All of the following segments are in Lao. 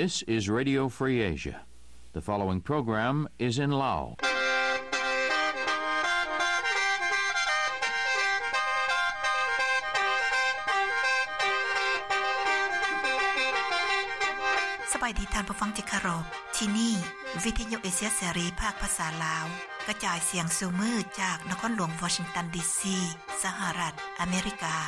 This is Radio Free Asia. The following program is in Lao. ສະບາຍດີທ່ານຜູ້ຟັງທີ່ເຄົາລົບ. ທີ່ນີ້ ວິທະຍຸເອເຊຍເສລີ ພາກພາສາລາວ ກະຈາຍສຽງສູ່ມື້ຈາກນະຄອນຫຼວງວໍຊິງຕັນ ດີຊີ ສະຫະລັດອາເມລິກາ.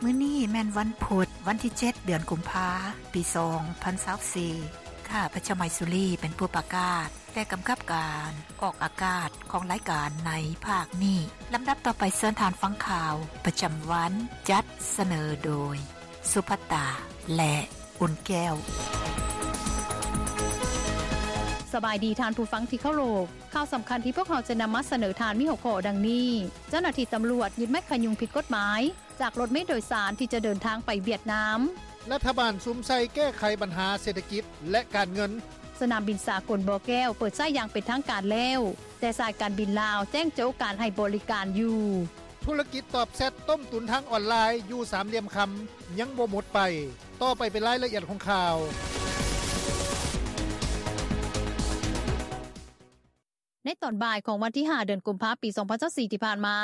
ມື້ນີ້ແມ່ນວັນພຸດ, ວັນທີເຈັດ ເດືອນກຸມພາ ປີສອງພັນຊາວສີ່. ຂ້າພະເຈົ້າໄມຊູລີ ເປັນຜູ້ປະກາດ ແລະ ກຳກັບການອອກອາກາດຂອງລາຍການໃນພາກນີ້. ລຳດັບຕໍ່ໄປເຊີນທ່ານຟັງຂ່າວປະຈຳວັນ ຈັດສະເໜີໂດຍ ສຸພັດຕາ ແລະ ອຸ່ນແກ້ວ. ສະບາຍດີທ່ານຜູ້ຟັງທີ່ເຄົາລົບ. ຂ່າວສຳຄັນທີ່ພວກເຮົາຈະນຳມາສະເໜີທ່ານມີຫົວຂໍ້ດັ່ງນີ້: ເຈົ້າໜ້າທີ່ຕຳຫຼວດຍຶດໄມ້ຂະຍຸງຜິດກົດໝາຍ ຈາກລົດເມໂດຍສານທີ່ຈະເດີນທາງໄປຫວຽດນາມ. ລັດຖະບານສຸມໃສ່ແກ້ໄຂບັນຫາເສດຖະກິດ ແລະ ການເງິນ. ສະໜາມບິນສາກົນບໍ່ແກ້ວເປີດໃຊ້ຢ່າງເປັນທາງການແລ້ວ, ແຕ່ສາຍການບິນລາວແຈ້ງໂຈະການໃຫ້ບໍລິການຢູ່. ທຸລະກິດຕອບແຊັດຕົ້ມຕຸນທາງອອນລາຍຢູ່ສາມຫຼ່ຽມຄຳ ຍັງບໍ່ໝົດໄປ. ຕໍ່ໄປເປັນລາຍລະອຽດຂອງຂ່າວ. ໃນຕອນບ່າຍຂອງວັນທີຫ້າ ເດືອນກຸມພາ ປີສອງພັນຊາວສີ່ ທີ່ຜ່ານມາ,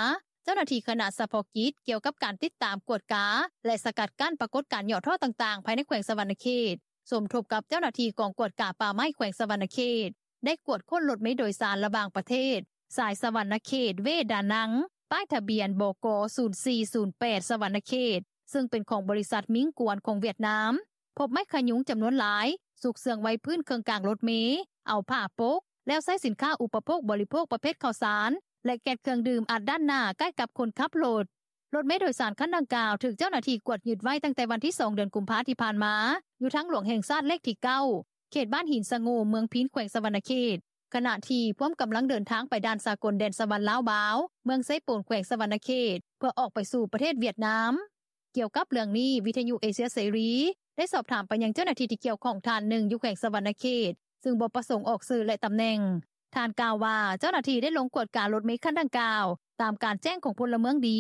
ເຈົ້າໜ້າທີ່ຄະນະສະເພາະກິດກ່ຽວກັບການຕິດຕາມ, ກວດກາ ແລະ ສະກັດກັ້ນປາກົດການຫຍໍ້ທໍ້ຕ່າງໆ ພາຍໃນແຂວງສະຫວັນນະເຂດ ສົມທົບກັບເຈົ້າໜ້າທີ່ກອງກວດກາປ່າໄມ້ແຂວງສະຫວັນນະເຂດ ໄດ້ກວດຄົ້ນລົດເມໂດຍສານລະຫວ່າງປະເທດ ສາຍສະຫວັນນະເຂດ ເວດານັງ ປ້າຍທະບຽນ ບກ ສູນສີ່ສູນແປດ ສະຫວັນນະເຂດ ເຊິ່ງເປັນຂອງບໍລິສັດມິງກວນຂອງຫວຽດນາມ, ພົບໄມ້ຂະຍຸງຈຳນວນຫຼາຍ ຊຸກເຊື່ອງໄວ້ພື້ນເຄິ່ງກາງລົດເມ, ເອົາຜ້າປົກ ແລ້ວໃຊ້ສິນຄ້າອຸປະໂພກບໍລິໂພກປະເພດເຂົ້າສານ ແລະ ແກັດເຄື່ອງດື່ມອັດດ້ານໜ້າໃກ້ກັບຄົນຂັບລົດ. ລົດເມໂດຍສານຄັນດັ່ງກ່າວ ຖືກເຈົ້າໜ້າທີ່ກວດຍຶດໄວ້ຕັ້ງແຕ່ວັນທີສອງ ເດືອນກຸມພາທີ່ຜ່ານມາ ຢູ່ທາງຫຼວງແຫ່ງຊາດເລກທີເກົ້າ ເຂດບ້ານຫີນສະໂງ່ ເມືອງພີນ ແຂວງສະຫວັນນະເຂດ, ຂະນະທີ່ພວມກຳລັງເດີນທາງໄປດ່ານສາກົນແດນສະຫວັນລາວບາວ ເມືອງເຊໂປນ ແຂວງສະຫວັນນະເຂດ ເພື່ອອອກໄປສູ່ປະເທດຫວຽດນາມ. ກ່ຽວກັບເລື່ອງນີ້, ວິທະຍຸເອເຊຍເສລີ ໄດ້ສອບຖາມໄປຍັງເຈົ້າໜ້າທີ່ທີ່ກ່ຽວຂ້ອງທ່ານໜຶ່ງຢູ່ແຂວງສະຫວັນນະເຂດ ຊຶ່ງບໍ່ປະສົງອອກຊື່ ແລະ ຕຳແໜ່ງ. ທ່ານກ່າວວ່າ ເຈົ້າໜ້າທີ່ໄດ້ລົງກວດກາລົດເມຄັນດັ່ງກ່າວ ຕາມການແຈ້ງຂອງພົນລະເມືອງດີ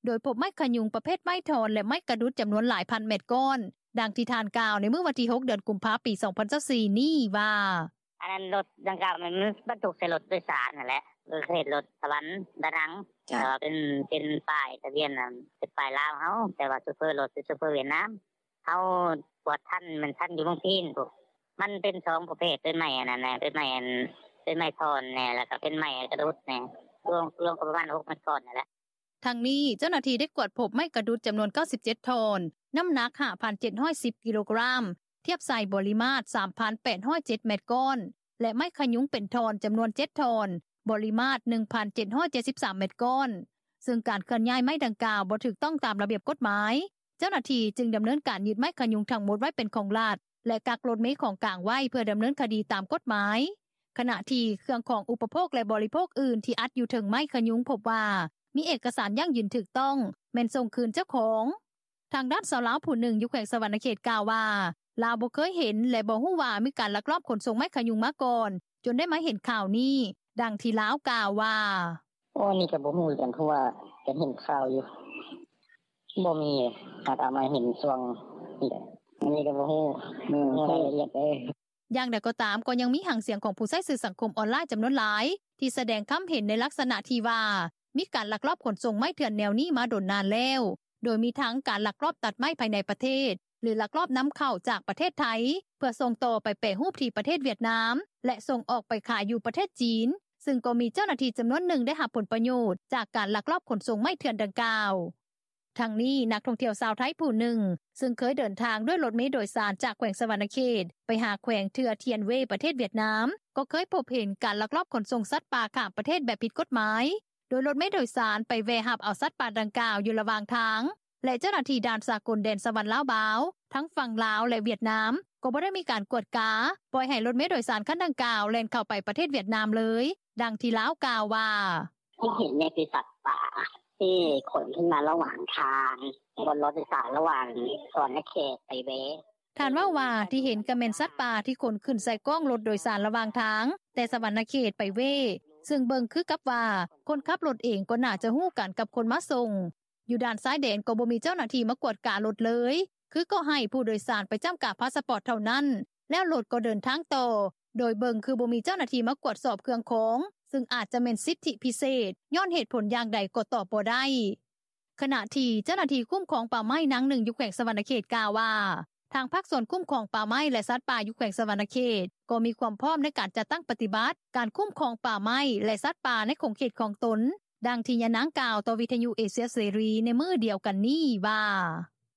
ໂດຍພົບໄມ້ຂະຍຸງປະເພດໄມ້ທ່ອນ ແລະ ໄມ້ກະດຸດຈຳນວນຫຼາຍພັນແມັດກ້ອນ, ດັ່ງທີ່ທ່ານກ່າວໃນມື້ວັນທີຫົກ ເດືອນກຸມພາ ປີສອງພັນຊາວສີ່ນີ້ວ່າ: ອັນນັ້ນລົດດັ່ງກ່າວມັນບັນທຸກໃສ່ລົດໂດຍສານຫັ້ນແຫຼະ ເອີ ເຂດລົດສະຫວັນດານັງ ເອີ ເປັນ ເປັນປ້າຍທະບຽນ ເປັນປ້າຍລາວເຮົາ ແຕ່ວ່າໂຊເຟີລົດເປັນໂຊເຟີຫວຽດນາມ. ເຮົາກວດທັນ ແມ່ນທັນຢູ່ເມືອງພີນພຸ້ນ. ມັນເປັນສອງປະເພດ ເປັນໄມ້ອັນນັ້ນແດ່ ເປັນໄມ້ອັນ ເປັນໄມ້ທ່ອນແດ່ ແລ້ວກໍເປັນໄມ້ກະດຸດແດ່ ລວມ ລວມກໍປະມານຫົກແມັດກ້ອນນີ້ແຫຼະ. ທັງນີ້, ເຈົ້າໜ້າທີ່ໄດ້ກວດພົບໄມ້ກະດຸດຈຳນວນເກົ້າສິບເຈັດທ່ອນ, ນ້ຳໜັກຫ້າພັນເຈັດຮ້ອຍສິບກິໂລກຣາມ, ທຽບໃສ່ບໍລິມາດສາມພັນແປດຮ້ອຍເຈັດແມັດກ້ອນ ແລະ ໄມ້ຂະຍຸງເປັນທ່ອນຈຳນວນເຈັດທ່ອນ, ບໍລິມາດໜຶ່ງພັນເຈັດຮ້ອຍເຈັດສິບສາມແມັດກ້ອນ, ເຊິ່ງການເຄື່ອນຍ້າຍໄມ້ດັ່ງກ່າວບໍ່ຖືກຕ້ອງຕາມລະບຽບກົດໝາຍ. ເຈົ້າໜ້າທີ່ຈຶ່ງດຳເນີນການຍຶດໄມ້ຂະຍຸງທັງໝົດໄວ້ເປັນຂອງລັດ ແລະ ກັກລົດເມຂອງກາງໄວ້ເພື່ອດຳເນີນຄະດີຕາມກົດໝາຍ, ຂະນະທີ່ເຄື່ອງຂອງອຸປະໂພກ ແລະ ບໍລິໂພກອື່ນທີ່ອັດຢູ່ເທິງໄມ້ຂະຍຸງພົບວ່າ ມີເອກະສານຢັ້ງຢືນຖືກຕ້ອງ ແມ່ນສົ່ງຄືນເຈົ້າຂອງ. ທາງດ້ານຊາວລາວຜູ້ໜຶ່ງຢູ່ແຂວງສະຫວັນນະເຂດກ່າວວ່າ ລາວບໍ່ເຄີຍເຫັນ ແລະ ບໍ່ຮູ້ວ່າມີການລັກລອບຂົນສົ່ງໄມ້ຂະຍຸງມາກ່ອນ ຈົນໄດ້ມາເຫັນຂ່າວນີ້, ດັ່ງທີ່ລາວກ່າວວ່າ: ໂອ້ ອັນນີ້ກໍບໍ່ຮູ້ຄືກັນ ເພາະວ່າກໍເຫັນຂ່າວຢູ່ ບໍ່ມີ ຫາກເອົາມາເຫັນຊ່ວງນີ້ແຫຼະ ອັນນີ້ກໍບໍ່ຮູ້ ບໍ່ຮູ້ລາຍລະອຽດເດ້. ຢ່າງໃດກໍຕາມ, ກໍຍັງມີຫາງສຽງຂອງຜູ້ໃຊ້ສື່ສັງຄົມອອນລາຍຈຳນວນຫຼາຍ ທີ່ສະແດງຄຳເຫັນໃນລັກສະນະທີ່ວ່າ ມີການລັກລອບຂົນສົ່ງໄມ້ເຖື່ອນແນວນີ້ມາດົນນານແລ້ວ, ໂດຍມີທັງການລັກລອບຕັດໄມ້ພາຍໃນປະເທດ ຫຼື ລັກລອບນຳເຂົ້າຈາກປະເທດໄທ ເພື່ອສົ່ງຕໍ່ໄປແປຮູບທີ່ປະເທດຫວຽດນາມ ແລະ ສົ່ງອອກໄປຂາຍຢູ່ປະເທດຈີນ, ຊຶ່ງກໍມີເຈົ້າໜ້າທີ່ຈຳນວນໜຶ່ງໄດ້ຮັບຜົນປະໂຫຍດຈາກການລັກລອບຂົນສົ່ງໄມ້ເຖື່ອນດັ່ງກ່າວ. ທັງນີ້, ນັກທ່ອງທ່ຽວຊາວໄທຜູ້ໜຶ່ງ ຊຶ່ງເຄີຍເດີນທາງດ້ວຍລົດເມໂດຍສານຈາກແຂວງສະຫວັນນະເຂດໄປຫາແຂວງເທື່ອທຽນເວ ປະເທດຫວຽດນາມ ກໍເຄີຍພົບເຫັນການລັກລອບຂົນສົ່ງສັດປ່າຂ້າມປະເທດແບບຜິດກົດໝາຍ, ໂດຍລົດເມໂດຍສານໄປແວ່ຮັບເອົາສັດປ່າດັ່ງກ່າວຢູ່ລະຫວ່າງທາງ ແລະ ເຈົ້າໜ້າທີ່ດ່ານສາກົນແດນສະຫວັນລາວບາວ ທັງຝັ່ງລາວ ແລະ ຫວຽດນາມ ກໍບໍ່ໄດ້ມີການກວດກາ, ປ່ອຍໃຫ້ລົດເມໂດຍສານຄັນດັ່ງກ່າວແລ່ນເຂົ້າໄປປະເທດຫວຽດນາມເລີຍ, ດັ່ງທີ່ລາວກ່າວວ່າ: ທີ່ເຫັນນີ້ຄືສັດປ່າທີ່ຂົນຂຶ້ນມາລະຫວ່າງທາງ ບົນລົດໂດຍສານລະຫວ່າງສະຫວັນນະເຂດໄປເວ. ທ່ານເວົ້າວ່າ ທີ່ເຫັນກໍແມ່ນສັດປ່າທີ່ຂົນຂຶ້ນໃສ່ກ້ອງລົດໂດຍສານລະຫວ່າງທາງ ແຕ່ສະຫວັນນະເຂດໄປເວ, ຊຶ່ງເບິ່ງຄືກັບວ່າ ຄົນຂັບລົດເອງກໍໜ້າຈະຮູ້ກັນກັບຄົນມາສົ່ງ. ຢູ່ດ່ານຊາຍແດນກໍບໍ່ມີເຈົ້າໜ້າທີ່ມາກວດກາລົດເລີຍ ຄືກໍໃຫ້ຜູ້ໂດຍສານໄປຈ້ຳກາພາສະປອດເທົ່ານັ້ນ ແລ້ວລົດກໍເດີນທາງຕໍ່ ໂດຍເບິ່ງຄືບໍ່ມີເຈົ້າໜ້າທີ່ມາກວດສອບເຄື່ອງຂອງ ຊຶ່ງອາດຈະແມ່ນສິດທິພິເສດ ຍ້ອນເຫດຜົນຢ່າງໃດກໍຕອບບໍ່ໄດ້. ຂະນະທີ່ເຈົ້າໜ້າທີ່ຄຸ້ມຄອງປ່າໄມ້ນາງໜຶ່ງຢູ່ແຂວງສະຫວັນນະເຂດກ່າວວ່າ ທາງພາກສ່ວນຄຸ້ມຄອງປ່າໄມ້ ແລະ ສັດປ່າຢູ່ແຂວງສະຫວັນນະເຂດ ກໍມີຄວາມພ້ອມໃນການຈັດຕັ້ງປະຕິບັດການຄຸ້ມຄອງປ່າໄມ້ ແລະ ສັດປ່າໃນຂົງເຂດຂອງຕົນ, ດັ່ງທີ່ຍານາງກ່າວຕໍ່ວິທຍຸເອເຊຍເສລີໃນມື້ດຽວກັນນີ້ວ່າ: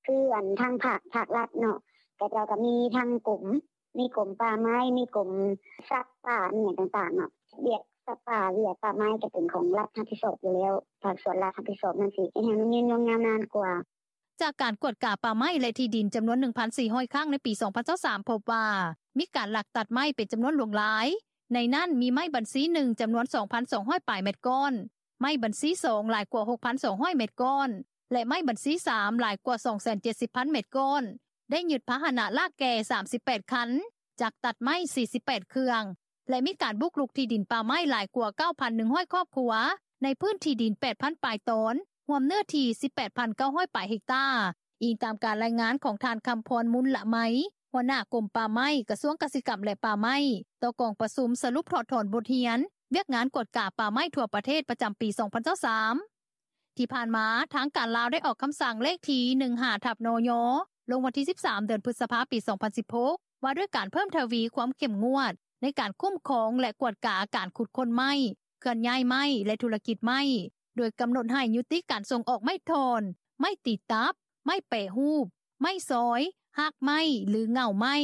ຄືອັນທາງພາກ ພາກລັດເນາະ ເຂົາເຈົ້າກໍມີທັງກົມ ມີກົມປ່າໄມ້ ມີກົມສັດປ່າ ມີຫຍັງຕ່າງໆເນາະ ວຽກສັດປ່າ ວຽກປ່າໄມ້ກໍເປັນຂອງລັດຮັບຜິດຊອບຢູ່ແລ້ວ ພາກສ່ວນລັດຮັບຜິດຊອບນັ້ນ ຊິເຮັດໃຫ້ມັນຍືນຍົງຍາວນານກວ່າ. ຈາກການກວດກາປ່າໄມ້ ແລະ ທີ່ດິນຈຳນວນ ໜຶ່ງພັນສີ່ຮ້ອຍ ຄັ້ງໃນປີ ສອງພັນຊາວສາມ ພົບວ່າ ມີການລັກຕັດໄມ້ເປັນຈຳນວນຫຼວງຫຼາຍ, ໃນນັ້ນມີໄມ້ບັນຊີ ໜຶ່ງ ຈຳນວນ ສອງພັນສອງຮ້ອຍ ປາຍແມັດກ້ອນ, ໄມ້ບັນຊີ ສອງ ຫຼາຍກວ່າ ຫົກພັນສອງຮ້ອຍ ແມັດກ້ອນ ແລະ ໄມ້ບັນຊີ ສາມ ຫຼາຍກວ່າ ສອງແສນເຈັດສິບພັນ ແມັດກ້ອນ, ໄດ້ຍຶດພາຫະນະລາກແກ່ ສາມສິບແປດ ຄັນ, ຈັກຕັດໄມ້ ສີ່ສິບແປດ ເຄື່ອງ ແລະ ມີການບຸກລຸກທີ່ດິນປ່າໄມ້ຫຼາຍກວ່າ ເກົ້າພັນໜຶ່ງຮ້ອຍ ຄອບຄົວ ໃນພື້ນທີ່ດິນ ແປດພັນ ປາຍຕອນ ຮວມເນື້ອທີ່ ສິບແປດພັນເກົ້າຮ້ອຍ ປາຍເຮັກຕາ, ອີງຕາມການລາຍງານຂອງທ່ານ ຄຳພອນ ມຸນລະໄມ ຫົວໜ້າກົມປ່າໄມ້ ກະຊວງກະສິກຳ ແລະ ປ່າໄມ້ ຕໍ່ກອງປະຊຸມສະຫຼຸບຖອດຖອນບົດຮຽນວຽກງານກວດກາປ່າໄມ້ທົ່ວປະເທດ ປະຈຳປີ ສອງພັນຊາວສາມ. ທີ່ຜ່ານມາ ທາງການລາວໄດ້ອອກຄຳສັ່ງເລກທີ ໜຶ່ງຫ້າ ທັບ ນຍ ລົງວັນທີ ສິບສາມ ເດືອນພຶດສະພາ ປີ ສອງພັນສິບຫົກ ວ່າດ້ວຍການເພີ່ມທະວີຄວາມເຂັ້ມງວດໃນການຄຸ້ມຄອງ ແລະ ກວດກາການຂຸດຄົ້ນໄມ້, ເຄື່ອນຍ້າຍໄມ້ ແລະ ທຸລະກິດໄມ້ ໂດຍກຳນົດໃຫ້ຍຸຕິການສົ່ງອອກໄມ້ທ່ອນ, ໄມ້ຕີຕັບ, ໄມ້ແປຮູບ, ໄມ້ຊອຍ, ຮາກໄມ້ ຫຼື ເຫງົ້າໄມ້,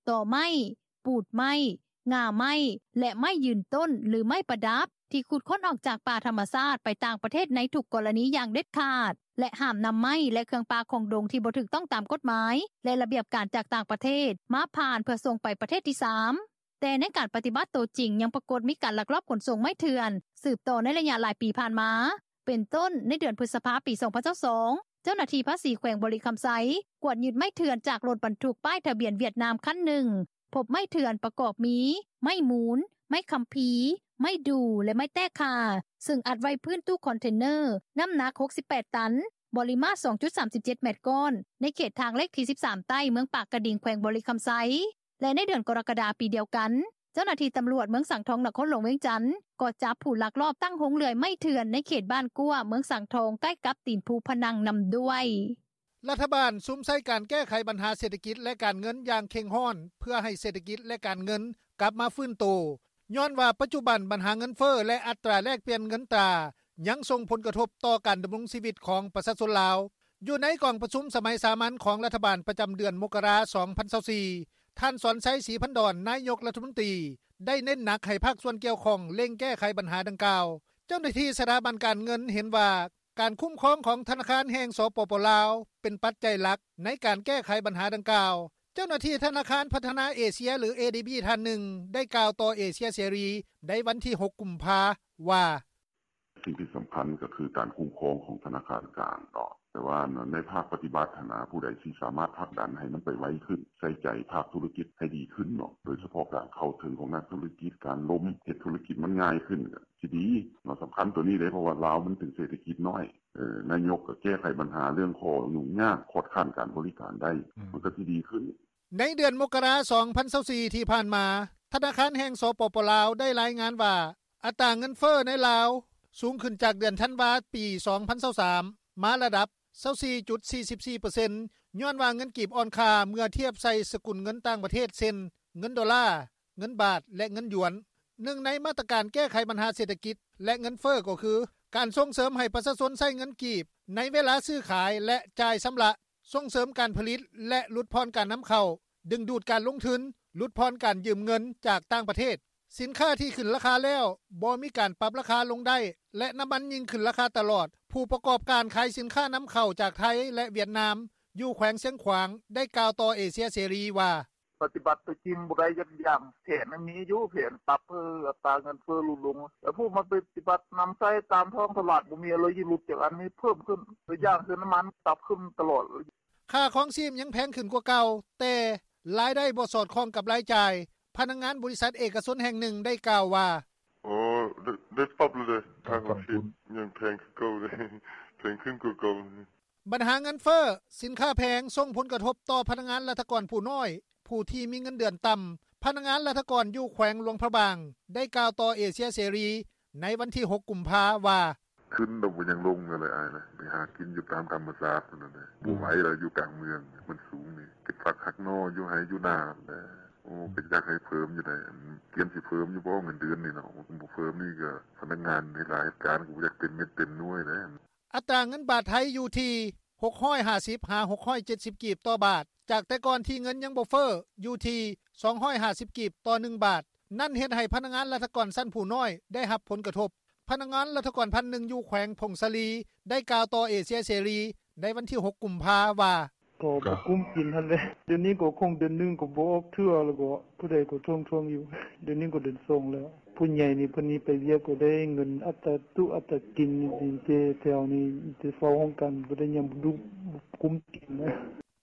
ຕໍໄມ້, ປູດໄມ້, ງ່າໄມ້ ແລະ ໄມ້ຢືນຕົ້ນ ຫຼື ໄມ້ປະດັບ ທີ່ຂຸດຄົ້ນອອກຈາກປ່າທຳມະຊາດໄປຕ່າງປະເທດໃນທຸກກໍລະນີຢ່າງເດັດຂາດ ແລະ ຫ້າມນຳໄມ້ ແລະ ເຄື່ອງປ່າຂອງດົງທີ່ບໍ່ຖືກຕ້ອງຕາມກົດໝາຍ ແລະ ລະບຽບການຈາກຕ່າງປະເທດ ມາຜ່ານເພື່ອສົ່ງໄປປະເທດທີສາມ. ແຕ່ໃນການປະຕິບັດໂຕຈິງ ຍັງປາກົດມີການລັກລອບຂົນສົ່ງໄມ້ເຖື່ອນ ສືບຕໍ່ໃນໄລຍະຫຼາຍປີຜ່ານມາ. ເປັນຕົ້ນ, ໃນເດືອນພຶດສະພາ ປີ ສອງພັນຊາວສອງ ເຈົ້າໜ້າທີ່ພາສີແຂວງບໍລິຄຳໄຊ ກວດຍຶດໄມ້ເຖື່ອນຈາກລົດບັນທຸກປ້າຍທະບຽນຫວຽດນາມຄັນໜຶ່ງ, ພົບໄມ້ເຖື່ອນປະກອບມີ ໄມ້ມູນ, ໄມ້ຄຳພີ, ໄມ້ດູ່ ແລະ ໄມ້ແຕ້ຂ່າ ຊຶ່ງອັດໄວ້ພື້ນຕູ້ຄອນເທນເນີ ນ້ຳໜັກ ຫົກສິບແປດ ຕັນ, ບໍລິມາດ ສອງຈຸດສາມສິບເຈັດ ແມັດກ້ອນ ໃນເຂດທາງເລກທີ ສິບສາມ ໃຕ້ ເມືອງປາກກະດິງ ແຂວງບໍລິຄຳໄຊ. ແລະ ໃນເດືອນກໍລະກະດາປີດຽວກັນ, ເຈົ້າໜ້າທີ່ຕຳຫຼວດເມືອງສັງທອງ ນະຄອນຫຼວງວຽງຈັນ ກໍຈັບຜູ້ລັກລອບຕັ້ງໂຮງເລື່ອຍໄມ້ເຖື່ອນໃນເຂດບ້ານກວ້າ ເມືອງສັງທອງ ໃກ້ກັບຕີນພູພະນັງນຳດ້ວຍ. ລັດຖະບານສຸມໃສ່ການແກ້ໄຂບັນຫາເສດຖະກິດ ແລະ ການເງິນຢ່າງເຄັ່ງຮ້ອນ ເພື່ອໃຫ້ເສດຖະກິດ ແລະ ການເງິນກັບມາຟື້ນໂຕ ຍ້ອນວ່າປັດຈຸບັນບັນຫາເງິນເຟີ້ ແລະ ອັດຕາແລກປ່ຽນເງິນຕາ ຍັງສົ່ງຜົນກະທົບຕໍ່ການດຳລົງຊີວິດຂອງປະຊາຊົນລາວ. ຢູ່ໃນກອງປະຊຸມສະໄໝສາມັນຂອງລັດຖະບານປະຈຳເດືອນມົກກະລາ ສອງພັນຊາວສີ່ ທ່ານ ສອນໄຊ ສີພັນດອນ ນາຍົກລັດຖະມົນຕີ ໄດ້ເນັ້ນໜັກໃຫ້ພາກສ່ວນກ່ຽວຂ້ອງເລັ່ງແກ້ໄຂບັນຫາດັ່ງກ່າວ. ເຈົ້າໜ້າທີ່ສະຖາບັນການເງິນເຫັນວ່າ ການຄຸ້ມຄອງຂອງທະນາຄານແຫ່ງ ສປປ ລາວ ເປັນປັດໄຈຫຼັກໃນການແກ້ໄຂບັນຫາດັ່ງກ່າວ. ເຈົ້າໜ້າທີ່ທະນາຄານພັດທະນາເອເຊຍ ຫຼື ເອດີບີ ທ່ານໜຶ່ງ ໄດ້ກ່າວຕໍ່ເອເຊຍເສລີໃນວັນທີ ຫົກ ກຸມພາ ວ່າ: ສິ່ງທີ່ສຳຄັນກໍຄືການຄຸ້ມຄອງຂອງທະນາຄານກາງເນາະ ແຕ່ວ່າໃນພາກປະຕິບັດຫັ້ນນະ ຜູ້ໃດຊິສາມາດຜັກດັນໃຫ້ມັນໄປໄວຂຶ້ນ ໃສ່ໃຈພາກທຸລະກິດໃຫ້ດີຂຶ້ນເນາະ ໂດຍສະເພາະການເຂົ້າເຖິງຂອງນັກທຸລະກິດ ການລົມເຮັດທຸລະກິດມັນງ່າຍຂຶ້ນ ກໍຊິດີເນາະ ສຳຄັນໂຕນີ້ເດ້ ເພາະວ່າລາວມັນເປັນເສດຖະກິດນ້ອຍ ນາຍົກກໍແກ້ໄຂບັນຫາເລື່ອງຂໍ້ຫຍຸ້ງຍາກ ຄອດຄ້ານການບໍລິການໄດ້ ມັນກໍຊິດີຂຶ້ນ. ໃນເດືອນມົກກະລາ ສອງພັນຊາວສີ່ ທີ່ຜ່ານມາ ທະນາຄານແຫ່ງ ສປປ ລາວ ໄດ້ລາຍງານວ່າ ອັດຕາເງິນເຟີ້ໃນລາວສູງຂຶ້ນຈາກເດືອນທັນວາ ປີ ສອງພັນຊາວສາມ ມາລະດັບ ຊາວສີ່ຈຸດສີ່ສິບສີ່ເປີເຊັນ ຍ້ອນວ່າເງິນກີບອ່ອນຄ່າເມື່ອທຽບໃສ່ສະກຸນເງິນຕ່າງປະເທດ ເຊັ່ນ ເງິນໂດລາ, ເງິນບາດ ແລະ ເງິນຢວນ. ໜຶ່ງໃນມາດຕະການແກ້ໄຂບັນຫາເສດຖະກິດ ແລະ ເງິນເຟີ້ກໍຄື ການສົ່ງເສີມໃຫ້ປະຊາຊົນໃຊ້ເງິນກີບໃນເວລາຊື້ຂາຍ ແລະ ຈ່າຍຊຳລະ, ສົ່ງເສີມການຜະລິດ ແລະ ຫຼຸດຜ່ອນການນຳເຂົ້າ, ດຶງດູດການລົງທຶນ, ຫຼຸດຜ່ອນການຢືມເງິນຈາກຕ່າງປະເທດ. ສິນຄ້າທີ່ຂຶ້ນລາຄາແລ້ວ ບໍ່ມີການປັບລາຄາລົງໄດ້ ແລະ ນ້ຳມັນຍິ່ງຂຶ້ນລາຄາຕະຫຼອດ. ຜູ້ປະກອບການຂາຍສິນຄ້ານຳເຂົ້າຈາກໄທ ແລະ ຫວຽດນາມ ຢູ່ແຂວງຊຽງຂວາງ ໄດ້ກ່າວຕໍ່ເອເຊຍເສລີວ່າ: ປະຕິບັດໂຕຈິງບໍ່ໄດ້ ຢ່າງແຜນມີຢູ່ ແຜນປັບໃຫ້ອັດຕາເງິນເຟີ້ຫຼຸດລົງ ແຕ່ຜູ້ມາປະຕິບັດນຳໃຊ້ຕາມທ້ອງຕະຫຼາດບໍ່ມີ ເລີຍຊິຫຼຸດຈາກອັນນີ້ເພີ່ມຂຶ້ນ ຕົວຢ່າງຄືນ້ຳມັນປັບຂຶ້ນຕະຫຼອດ. ຄ່າຄອງຊີບຍັງແພງຂຶ້ນກວ່າເກົ່າ ແຕ່ລາຍໄດ້ບໍ່ສອດຄ່ອງກັບລາຍຈ່າຍ. ພະນັກງານບໍລິສັດເອກະຊົນແຫ່ງໜຶ່ງໄດ້ກ່າວວ່າ: ເອີ ໄດ້ປັບແລ້ວເດ້ ທາງອາທິດຍັງແພງຄືເກົ່າເດ້ ແພງຂຶ້ນກວ່າເກົ່າ.” ບັນຫາເງິນເຟີ້, ສິນຄ້າແພງ ສົ່ງຜົນກະທົບຕໍ່ພະນັກງານລັດຖະກອນຜູ້ນ້ອຍ, ຜູ້ທີ່ມີເງິນເດືອນຕ່ຳ. ພະນັກງານລັດຖະກອນຢູ່ແຂວງຫຼວງພະບາງ ໄດ້ກ່າວຕໍ່ເອເຊຍເສລີ ໃນວັນທີຫົກ ກຸມພາ ວ່າ: “ຂຶ້ນແລ້ວບໍ່ຍັງລົງເລີຍອ້າຍ ໄປຫາກິນຢູ່ຕາມທຳມະຊາດພຸ້ນແຫຼະ ບໍ່ໄຫວແລ້ວ ຢູ່ກາງເມືອງມັນສູງນີ້ ເກັບຜັກຫັກໜໍ່ຢູ່ໄຮ່ຢູ່ນາຫັ້ນແຫຼະ. ໂອ້ ກໍຢາກໃຫ້ເພີ່ມຢູ່ໃດ໋ ກຽມຊິເພີ່ມຢູ່ບໍ່ເງິນເດືອນນີ້ເນາະ ບໍ່ເພີ່ມນີ້ກໍພະນັກງານເຮັດລາຍເຮັດການກໍບໍ່ຢາກເຕັມເມັດເຕັມໜ່ວຍແຫຼະ.” ອັດຕາເງິນບາດໄທຢູ່ທີ່ ຫົກຮ້ອຍຫ້າສິບ ຫາ ຫົກຮ້ອຍເຈັດສິບ ກີບຕໍ່ບາດ ຈາກແຕ່ກ່ອນທີ່ເງິນຍັງບໍ່ເຟີ້ ຢູ່ທີ່ ສອງຮ້ອຍຫ້າສິບ ກີບຕໍ່ໜຶ່ງບາດ. ນັ້ນເຮັດໃຫ້ພະນັກງານລັດຖະກອນຊັ້ນຜູ້ນ້ອຍໄດ້ຮັບຜົນກະທົບ. ພະນັກງານລັດຖະກອນພັນໜຶ່ງ ຢູ່ແຂວງຜົ້ງສາລີ ໄດ້ກ່າວຕໍ່ເອເຊຍເສລີ ໃນວັນທີຫົກ ກຸມພາ ວ່າ: “ກໍບໍ່ກຸ້ມກິນຫັ້ນແຫຼະ ດຽວນີ້ກໍຄົງເດືອນໜຶ່ງກໍບໍ່ອອກເທື່ອ ແລ້ວກໍຜູ້ໃດກໍທວງໆຢູ່ ດຽວນີ້ກໍເດືອນສອງແລ້ວ ຜູ້ໃຫຍ່ນີ້ເພິ່ນນີ້ໄປວຽກກໍໄດ້ເງິນອັດຕາຕຸອັດຕາກິນນີ້ ແຕ່ແຖວນີ້ມີແຕ່ເຝົ້າຫ້ອງການ ບໍ່ໄດ້ຫຍັງ ບໍ່ກຸ້ມກິນນະ.”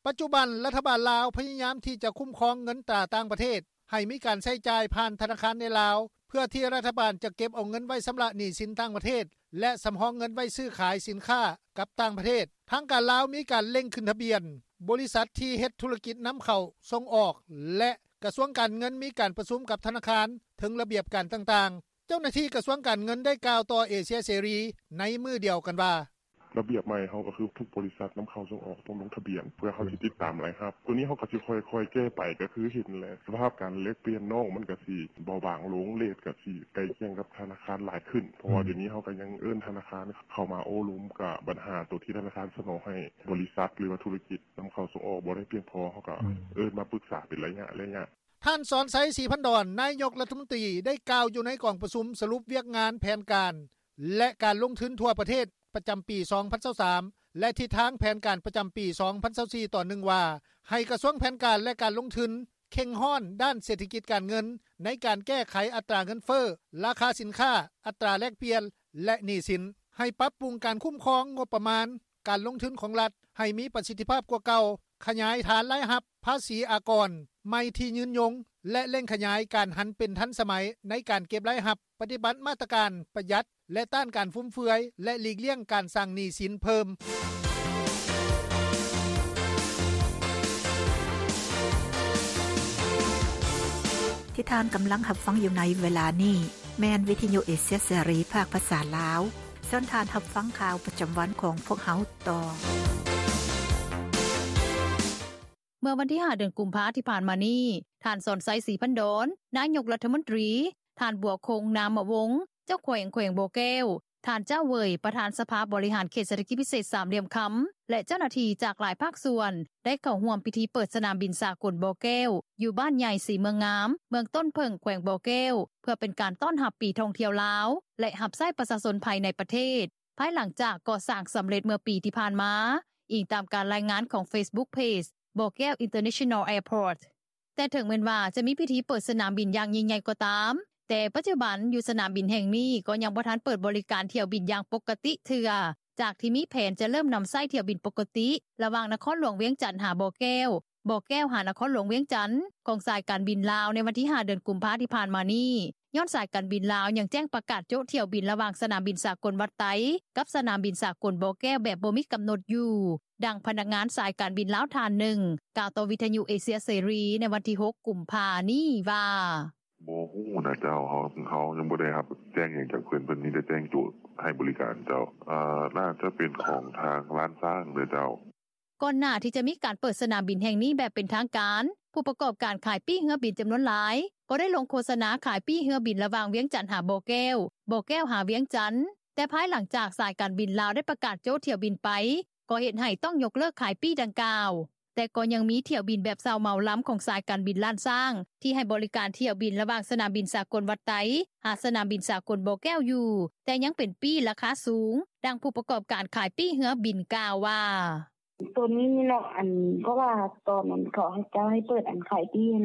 ປັດຈຸບັນ ລັດຖະບານລາວພະຍາຍາມທີ່ຈະຄຸ້ມຄອງເງິນຕາຕ່າງປະເທດ ໃຫ້ມີການໃຊ້ຈ່າຍຜ່ານທະນາຄານໃນລາວ ເພື່ອທີ່ລັດຖະບານຈະເກັບເອົາເງິນໄວ້ຊຳລະໜີ້ສິນຕ່າງປະເທດ ແລະ ສຳຮອງເງິນໄວ້ຊື້ຂາຍສິນຄ້າກັບຕ່າງປະເທດ. ທາງການລາວມີການເລັ່ງຂຶ້ນທະບຽນບໍລິສັດທີ່ເຮັດທຸລະກິດນຳເຂົ້າສົ່ງອອກ ແລະ ກະຊວງການເງິນມີການປະຊຸມກັບທະນາຄານເຖິງລະບຽບການຕ່າງໆ. ເຈົ້າໜ້າທີ່ກະຊວງການເງິນໄດ້ກ່າວຕໍ່ເອເຊຍເສລີໃນມື້ດຽວກັນວ່າ: “ລະບຽບໃໝ່ເຮົາກໍຄືທຸກບໍລິສັດນຳເຂົ້າສົ່ງອອກຕ້ອງລົງທະບຽນ ເພື່ອເຮົາຊິຕິດຕາມລາຍຮັບ ໂຕນີ້ເຮົາກໍຊິຄ່ອຍໆແກ້ໄຂ ກໍຄືເຫັນແຫຼະ ສະພາບການແລກປ່ຽນນອກມັນກໍຊິເບົາບາງລົງ ເຣດກໍຊິໃກ້ຄຽງກັບທະນາຄານຫຼາຍຂຶ້ນ ເພາະວ່າດຽວນີ້ເຮົາກໍຍັງເອີ້ນທະນາຄານເຂົ້າມາໂອ້ລົມ ກະບັນຫາໂຕທີ່ທະນາຄານສະໜອງໃຫ້ບໍລິສັດ ຫຼືວ່າທຸລະກິດນຳເຂົ້າສົ່ງອອກບໍ່ໄດ້ພຽງພໍ ເຮົາກໍເອີ້ນມາປຶກສາເປັນໄລຍະໆ.” ທ່ານ ສອນໄຊ ສີພັນດອນ ນາຍົກລັດຖະມົນຕີ ໄດ້ກ່າວຢູ່ໃນກອງປະຊຸມສະຫຼຸບວຽກງານແຜນການ ແລະ ການລົງທຶນທົ່ວປະເທດປະຈຳປີ ສອງພັນຊາວສາມ ແລະ ທິດທາງແຜນການປະຈຳປີ ສອງພັນຊາວສີ່ ຕອນໜຶ່ງວ່າ ໃຫ້ກະຊວງແຜນການ ແລະ ການລົງທຶນ ເຄັ່ງຮ້ອນດ້ານເສດຖະກິດການເງິນ ໃນການແກ້ໄຂອັດຕາເງິນເຟີ້, ລາຄາສິນຄ້າ, ອັດຕາແລກປ່ຽນ ແລະ ໜີ້ສິນ, ໃຫ້ປັບປຸງການຄຸ້ມຄອງງົບປະມານການລົງທຶນຂອງລັດ ໃຫ້ມີປະສິດທິພາບກວ່າເກົ່າ, ຂະຫຍາຍຖານລາຍຮັບພາສີອາກອນໃໝ່ທີ່ຍືນຍົງ ແລະ ເລັ່ງຂະຫຍາຍການຫັນເປັນທັນສະໄໝໃນການເກັບລາຍຮັບ, ປະຕິບັດມາດຕະການປະຢັດ ແລະ ຕ້ານການຟຸມເຟືອຍ ແລະ ຫຼີກລ້ຽງການສ້າງໜີ້ສິນເພີ່ມ. ທີ່ທ່ານກຳລັງຮັບຟັງຢູ່ໃນເວລານີ້ ແມ່ນວິທະຍຸເອເຊຍເສລີ ພາກພາສາລາວ. ເຊີນທ່ານຮັບຟັງຂ່າວປະຈຳວັນຂອງພວກເຮົາຕໍ່. ເມື່ອວັນທີຫ້າ ເດືອນກຸມພາທີ່ຜ່ານມານີ້, ທ່ານ ສອນໄຊ ສີພັນດອນ ນາຍົກລັດຖະມົນຕີ, ທ່ານ ບົວຄົງ ນາມະວົງ ເຈົ້າແຂວງແຂວງບໍ່ແກ້ວ, ທ່ານ ຈ້າວ ເຫວີຍ ປະທານສະພາບໍລິຫານເຂດເສດຖະກິດພິເສດສາມຫຼ່ຽມຄຳ ແລະ ເຈົ້າໜ້າທີ່ຈາກຫຼາຍພາກສ່ວນ ໄດ້ເຂົ້າຮ່ວມພິທີເປີດສະໜາມບິນສາກົນບໍ່ແກ້ວ ຢູ່ບ້ານໃຫຍ່ສີເມືອງງາມ ເມືອງຕົ້ນເຜິ້ງ ແຂວງບໍ່ແກ້ວ ເພື່ອເປັນການຕ້ອນຮັບປີທ່ອງທ່ຽວລາວ ແລະ ຮັບໃຊ້ປະຊາຊົນພາຍໃນປະເທດ ພາຍຫຼັງຈາກກໍ່ສ້າງສຳເລັດເມື່ອປີທີ່ຜ່ານມາ, ອີງຕາມການລາຍງານຂອງ Facebook Page ບໍ່ແກ້ວ International Airport. ແຕ່ເຖິງແມ່ນວ່າຈະມີພິທີເປີດສະໜາມບິນຢ່າງຍິ່ງໃຫຍ່ກໍຕາມ, ແຕ່ປັດຈຸບັນຢູ່ສະໜາມບິນແຫ່ງນີ້ກໍຍັງບໍ່ທັນເປີດບໍລິການຖ້ຽວບິນຢ່າງປົກກະຕິເທື່ອ, ຈາກທີ່ມີແຜນຈະເລີ່ມນຳໃຊ້ຖ້ຽວບິນປົກກະຕິ ລະຫວ່າງນະຄອນຫຼວງວຽງຈັນຫາບໍ່ແກ້ວ, ບໍ່ແກ້ວຫານະຄອນຫຼວງວຽງຈັນ ຂອງສາຍການບິນລາວໃນວັນທີຫ້າ ເດືອນກຸມພາທີ່ຜ່ານມານີ້, ຍ້ອນສາຍການບິນລາວຍັງແຈ້ງປະກາດໂຈະຖ້ຽວບິນລະຫວ່າງສະໜາມບິນສາກົນວັດໄຕ ກັບສະໜາມບິນສາກົນບໍ່ແກ້ວແບບບໍ່ມີກຳນົດຢູ່. ດັ່ງພະນັກງານສາຍການບິນລາວທ່ານໜຶ່ງ ກ່າວຕໍ່ວິທະຍຸເອເຊຍເສລີໃນວັນທີຫົກ ກຸມພານີ້ວ່າ: “ບໍ່ຮູ້ນະເຈົ້າ ເຮົາ ເຮົາຍັງບໍ່ໄດ້ຮັບແຈ້ງຫຍັງຈາກເພິ່ນ ເພິ່ນມີແຕ່ແຈ້ງໂຈະໃຫ້ບໍລິການເຈົ້າ ອາ ໜ້າຈະເປັນຂອງທາງລ້ານຊ້າງເດີເຈົ້າ.” ກ່ອນໜ້າທີ່ຈະມີການເປີດສະໜາມບິນແຫ່ງນີ້ແບບເປັນທາງການ, ຜູ້ປະກອບການຂາຍປີ້ເຮືອບິນຈຳນວນຫຼາຍ ກໍໄດ້ລົງໂຄສະນາຂາຍປີ້ເຮືອບິນລະຫວ່າງວຽງຈັນຫາບໍ່ແກ້ວ, ບໍ່ແກ້ວຫາວຽງຈັນ, ແຕ່ພາຍຫຼັງຈາກສາຍການບິນລາວໄດ້ປະກາດໂຈະຖ້ຽວບິນໄປ, ກໍເຮັດໃຫ້ຕ້ອງຍົກເລີກຂາຍປີ້ດັ່ງກ່າວ. ແຕ່ກໍຍັງມີຖ້ຽວບິນແບບເຊົ່າເໝົາລຳຂອງສາຍການບິນລ້ານຊ້າງ ທີ່ໃຫ້ບໍລິການຖ້ຽວບິນລະຫວ່າງສະໜາມບິນສາກົນວັດໄຕ ຫາສະໜາມບິນສາກົນບໍ່ແກ້ວຢູ່, ແຕ່ຍັງເປັນປີ້ລາຄາສູງ. ດັ່ງຜູ້ປະກອບການຂາຍປີ້ເຮືອບິນກ່າວວ່າ: “ໂຕນີ້ເນາະ ອັນ ເພາະວ່າຕອນນັ້ນເຂົາເຈົ້າໃຫ້ເປີດ ອັນ ຂາຍປີ້ຫັ້ນ